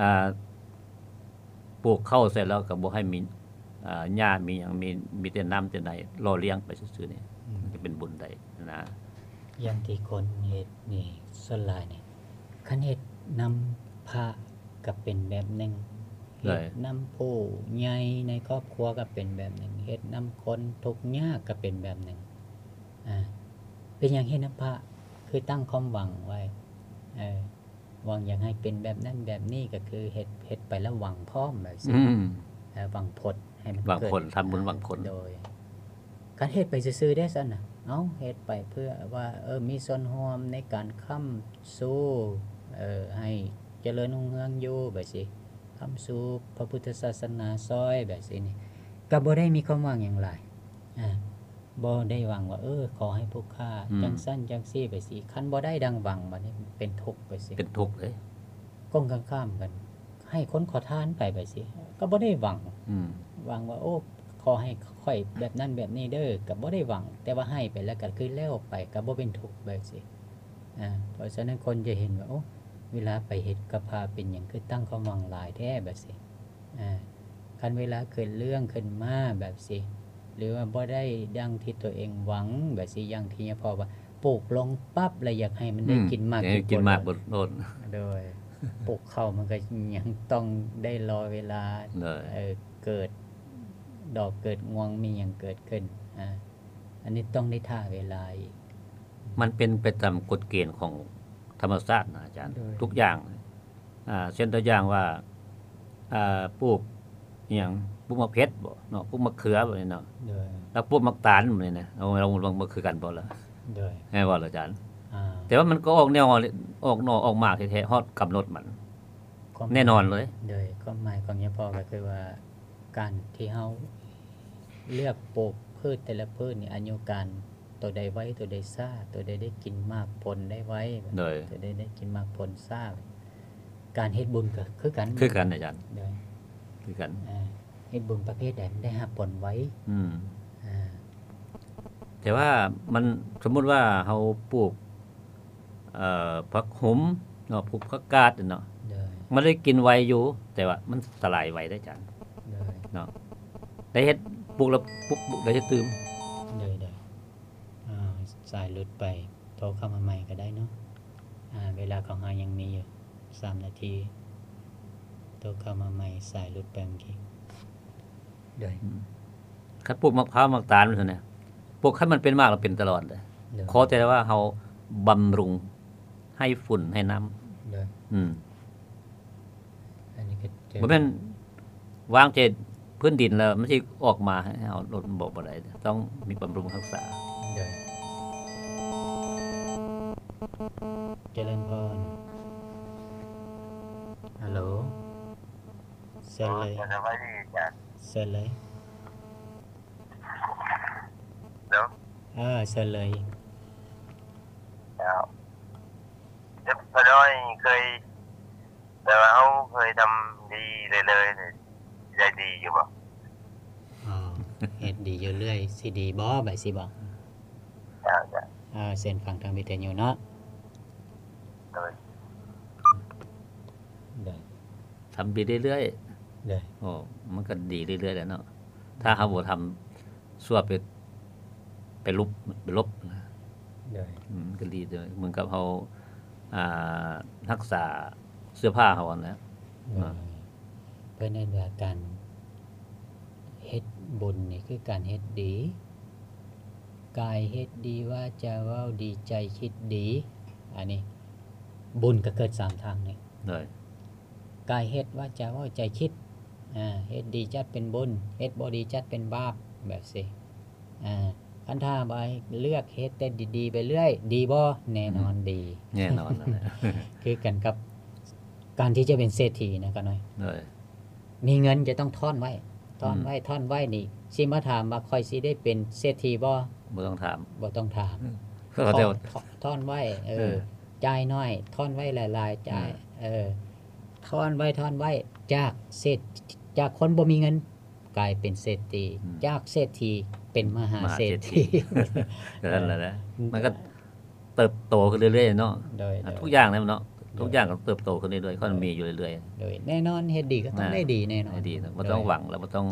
ອ່າ ປູກເຂົ້າໃສ່ແລ້ວກໍບໍ່ໃຫ້ມີ ອ່າ ຫຍ້າມີຫຍັງ ມີ ມີແຕ່ນ້ຳແຕ່ໃນຫຼໍ່ລ້ຽງໄປຊື່ໆນີ້ ອືມ ມັນກໍເປັນບຸນໄດ້ນະ. ຢ່າງທີ່ຄົນເຮັດນີ້ ສ່ວນຫຼາຍນີ້ ຄັນເຮັດນຳພະກໍເປັນແບບໜຶ່ງ ໂດຍ ເຮັດນຳຜູ້ໃຫຍ່ໃນຄອບຄົວກໍເປັນແບບໜຶ່ງ ເຮັດນຳຄົນທຸກຍາກກໍເປັນແບບໜຶ່ງ. ອ່າ ເປັນຫຍັງເຮັດນຳພະ ຄືຕັ້ງຄວາມຫວັງໄວ້ ເອີ ຫວັງຢາກໃຫ້ເປັນແບບນັ້ນແບບນີ້ ກໍຄືເຮັດ ເຮັດໄປແລ້ວຫວັງພ້ອມແບບຊີ້ ອືມ ເອີ ຫວັງຜົນໃຫ້ມັນ ຫວັງຜົນ ເກີດ ທຳບຸນຫວັງຜົນ ໂດຍ ຄັນເຮັດໄປຊື່ໆເດ້ຊັ້ນນະ ເອົ້າ ເຮັດໄປເພື່ອວ່າ ເອີ ມີສ່ວນຮ່ວມໃນການຄ້ຳຊູ ເອີ ໃຫ້ຈະເລີນຮຸ່ງເຮືອງຢູ່ແບບຊີ້ ຄ້ຳຊູພະພຸດທະສາສະໜາຊ່ອຍແບບຊີ້ນີ້ ກໍບໍ່ໄດ້ມີຄວາມຫວັງຫຍັງຫຼາຍ ອ່າ ບໍ່ໄດ້ຫວັງວ່າ ເອີ ຂໍໃຫ້ຜູ້ຂ້າ ອືມ ຈັ່ງຊັ້ນຈັ່ງຊີ້ໄປຊີ້ ຄັນບໍ່ໄດ້ດັ່ງຫວັງ ບັດນີ້ເປັນທຸກໄປຊີ້ ເປັນທຸກເລີຍ. ກົງກັນຂ້າມກັນ ໃຫ້ຄົນຂໍທານໄປ ໄປຊີ້ ກໍບໍ່ໄດ້ຫວັງ ອືມ ຫວັງວ່າ ໂອ້ ຂໍໃຫ້ຂ້ອຍແບບນັ້ນແບບນີ້ເດີ ກໍບໍ່ໄດ້ຫວັງ ແຕ່ວ່າໃຫ້ໄປແລ້ວກໍຄືແລ້ວໄປ ກໍບໍ່ເປັນທຸກໄປຊີ້. ອ່າ ເພາະສະນັ້ນຄົນຈະເຫັນວ່າ ໂອ້ ເວລາໄປເຮັດກັບພະເປັນຫຍັງຄືຕັ້ງຄວາມຫວັງຫຼາຍແທ້ ແບບຊີ້. ອ່າ ຄັນເວລາເກີດເລື່ອງຂຶ້ນມາແບບຊີ້ ຫຼືວ່າບໍ່ໄດ້ດັ່ງທີ່ຕົວເອງຫວັງແບບຊີ້ ຢ່າງທີ່ຍາພໍ່ວ່າ ປູກລົງປັບແລ້ວຢາກໃຫ້ມັນໄດ້ ອືມ ກິນໝາກ ຢາກໃຫ້ກິນໝາກ ກິນຜົນໂລດ ໂດຍ ປູກເຂົ້າມັນກໍຍັງຕ້ອງໄດ້ລໍເວລາ ໂດຍ ເອີ ເກີດດອກເກີດງວງ ມີຫຍັງເກີດຂຶ້ນ ອ່າ ອັນນີ້ຕ້ອງໄດ້ຖ້າເວລາອີກ. ມັນເປັນໄປຕາມກົດເກນຂອງທຳມະຊາດນະອາຈານ ໂດຍ ທຸກຢ່າງ ອ່າ ເຊັ່ນຕົວຢ່າງວ່າ ອ່າ ປູກອີ່ຫຍັງ ປູກໝາກເຜັດບໍເນາະ ປູກໝາກເຂືອແບບນີ້ເນາະ ໂດຍ ແລ້ວປູກໝາກຕານແບບນີ້ນະ ເອົາ ເອົາ ມັນຄືກັນບໍ່ລະ ໂດຍ ແມ່ນບໍ່ລະອາຈານ? ອ່າ ແຕ່ວ່າມັນກໍອອກແນວ ອອກໜໍ່ອອກໝາກແທ້ໆ ຮອດກຳນົດມັນ ຄວາມ ແນ່ນອນເລີຍ ໂດຍ ຄວາມໝາຍຂອງຍາພໍ່ກໍຄືວ່າ ການທີ່ເຮົາເລືອກປູກພືດແຕ່ລະພືດນີ້ ອາຍຸການ ໂຕໃດໄວ ໂຕໃດຊ້າ ໂຕໃດໄດ້ກິນໝາກຜົນໄດ້ໄວ ໂດຍ ໂຕໃດໄດ້ກິນໝາກຜົນຊ້າ ການເຮັດບຸນກໍຄືກັນ ຄືກັນອາຈານ ໂດຍ ຄືກັນ ອ່າ ເຮັດບຸນປະເພດໃດມັນໄດ້ຮັບຜົນໄວ ອືມ ອ່າ ແຕ່ວ່າມັນ ສົມມຸດວ່າເຮົາປູກ ເອີ ຜັກຫຸມເນາະ ປູກຜັກກາດເນາະ ໂດຍ ມັນໄດ້ກິນໄວຢູ່ ແຕ່ວ່າມັນສະຫຼາຍໄວເດ້ອາຈານ ໂດຍ ເນາະ ໄດ້ເຮັດ ປູກແລ້ວປຸບ ໄດ້ເຮັດຕື່ມ ໂດຍ ໂດຍ ອ່າ ສາຍຫຼຸດໄປ ໂທເຂົ້າມາໃໝ່ກໍໄດ້ເນາະ ອ່າ ເວລາຂອງເຮົາຍັງມີຢູ່ສາມນາທີ ໂທເຂົ້າມາໃໝ່ ສາຍຫຼຸດໄປເມື່ອກີ້ ໂດຍ ອືມ ຄັນປູກໝາກພ້າວໝາກຕານຊັ້ນນະ ປູກໃຫ້ມັນເປັນໝາກແລ້ວເປັນຕະຫຼອດເດ້ ໂດຍ ຂໍແຕ່ວ່າເຮົາບຳລຸງໃຫ້ຝຸ່ນໃຫ້ນ້ຳ ໂດຍ ອືມ ອັນນີ້ກໍ ບໍ່ແມ່ນວາງແຕ່ພື້ນດິນແລ້ວມັນຊິອອກມາໃຫ້ເຮົາລົດ ບໍ່ ບໍ່ໄດ້ ຕ້ອງມີບຳລຸງຮັກສາ ໂດຍ ຈະເລີນພອນ ຮັລໂຫຼ ເຊີນເລີຍ ສະບາຍດີອາຈານ ເຊີນເລີຍ ເນາະ ເອີ ເຊີນເລີຍ ເຈົ້າ ເຈົ້າ ພໍ່ນ້ອຍເຄີຍ ແຕ່ວ່າເຮົາເຄີຍທຳດີເລື້ອຍໆ ໄດ້ດີຢູ່ບໍ່? ອໍ ເຮັດດີຢູ່ເລື້ອຍ ຊິດີບໍ່ ແບບຊີ້ບໍ່? ເຈົ້າ ເຈົ້າ ເອີ ເຊີນຟັງທາງວິທະຍຸເນາະ. ໂດຍ ໂດຍ ທຳດີເລື້ອຍໆ ໂດຍ ໂອ້ ມັນກໍດີເລື້ອຍໆແຫຼະເນາະ. ຖ້າເຮົາບໍ່ທຳຊົ່ວ ໄປ ໄປຫຼຸບ ໄປຫຼົບນະ ໂດຍ ອືມ ມັນກໍດີເດີ້. ເໝືອນກັບເຮົາ ອ່າ ຮັກສາເສື້ອຜ້າເຮົາຫັ້ນແຫຼະ ໂດຍ ເນາະ. ເພິ່ນເອີ້ນວ່າການເຮັດບຸນນີ້ຄືການເຮັດດີ, ກາຍເຮັດດີ, ວາຈາເວົ້າດີ, ໃຈຄິດດີ. ອັນນີ້ບຸນກໍເກີດສາມທາງນີ້ ໂດຍ ກາຍເຮັດ, ວາຈາເວົ້າ, ໃຈຄິດ. ອ່າ ເຮັດດີຈັດເປັນບຸນ, ເຮັດບໍ່ດີຈັດເປັນບາບ ແບບຊີ້. ອ່າ ຄັນຖ້າວ່າເລືອກເຮັດແຕ່ດີໆໄປເລື້ອຍ ດີບໍ່? ແນ່ນອນ ອືມ ດີ ແນ່ນອນນັ້ນແຫຼະ ຄືກັນກັບການທີ່ຈະເປັນເສດຖີນະ ກະນ້ອຍ ໂດຍ ມີເງິນຈະຕ້ອງທ້ອນໄວ້ ທ້ອນໄວ້ ອືມ ທ້ອນໄວ້ນີ້ ຊິມາຖາມວ່າຂ້ອຍຊິໄດ້ເປັນເສດຖີບໍ່? ບໍ່ຕ້ອງຖາມ ບໍ່ຕ້ອງຖາມ ອືມ ທ້ອນ ທ້ອນໄວ້ ເອີ ເອີ ຈ່າຍໜ້ອຍ ທ້ອນໄວ້ຫຼາຍໆ ຈ່າຍ ເອີ ເອີ ທ້ອນໄວ້ ທ້ອນໄວ້ ຈາກເສດ ຈາກຄົນບໍ່ມີເງິນ ກາຍເປັນເສດຖີ ອືມ ຈາກເສດຖີເປັນມະຫາເສດຖີ ມະຫາເສດຖີ ນັ້ນແຫຼະ ເອີ ມັນກໍເຕີບໂຕຂຶ້ນເລື້ອຍໆເນາະ ໂດຍ ອ່າ ໂດຍ ທຸກຢ່າງແຫຼະເນາະ ໂດຍ ທຸກຢ່າງກໍເຕີບໂຕຂຶ້ນເລື້ອຍໆ ໂດຍ ກໍມີຢູ່ເລື້ອຍໆ ໂດຍ ແນ່ນອນ ເຮັດດີກໍຕ້ອງ ອ່າ ໄດ້ດີແນ່ນອນ ໄດ້ດີເນາະ ບໍ່ຕ້ອງ ໂດຍ ຫວັງ ແລະບໍ່ຕ້ອງ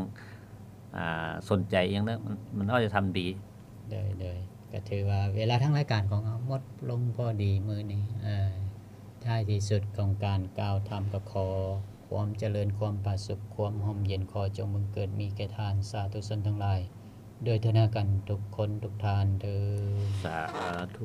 ອ່າ ສົນໃຈຫຍັງເນາະ ມັນ ມັນເຮົາຈະທຳດີ ໂດຍ ໂດຍ ກໍຖືວ່າເວລາທາງລາຍການຂອງເຮົາໝົດລົງພໍດີມື້ນີ້ ເອີ ທ້າຍທີ່ສຸດຂອງການກ່າວທຳ ກໍຂໍຄວາມຈະເລີນ ຄວາມຜາສຸກ ຄວາມຮົ່ມເຢັນ ຂໍຈົ່ງບັງເກີດມີແກ່ທ່ານສາທຸຊົນທັງຫຼາຍ ດ້ວຍເທີນນາກັນທຸກຄົນທຸກທ່ານເທີ້ນ ສາທຸ.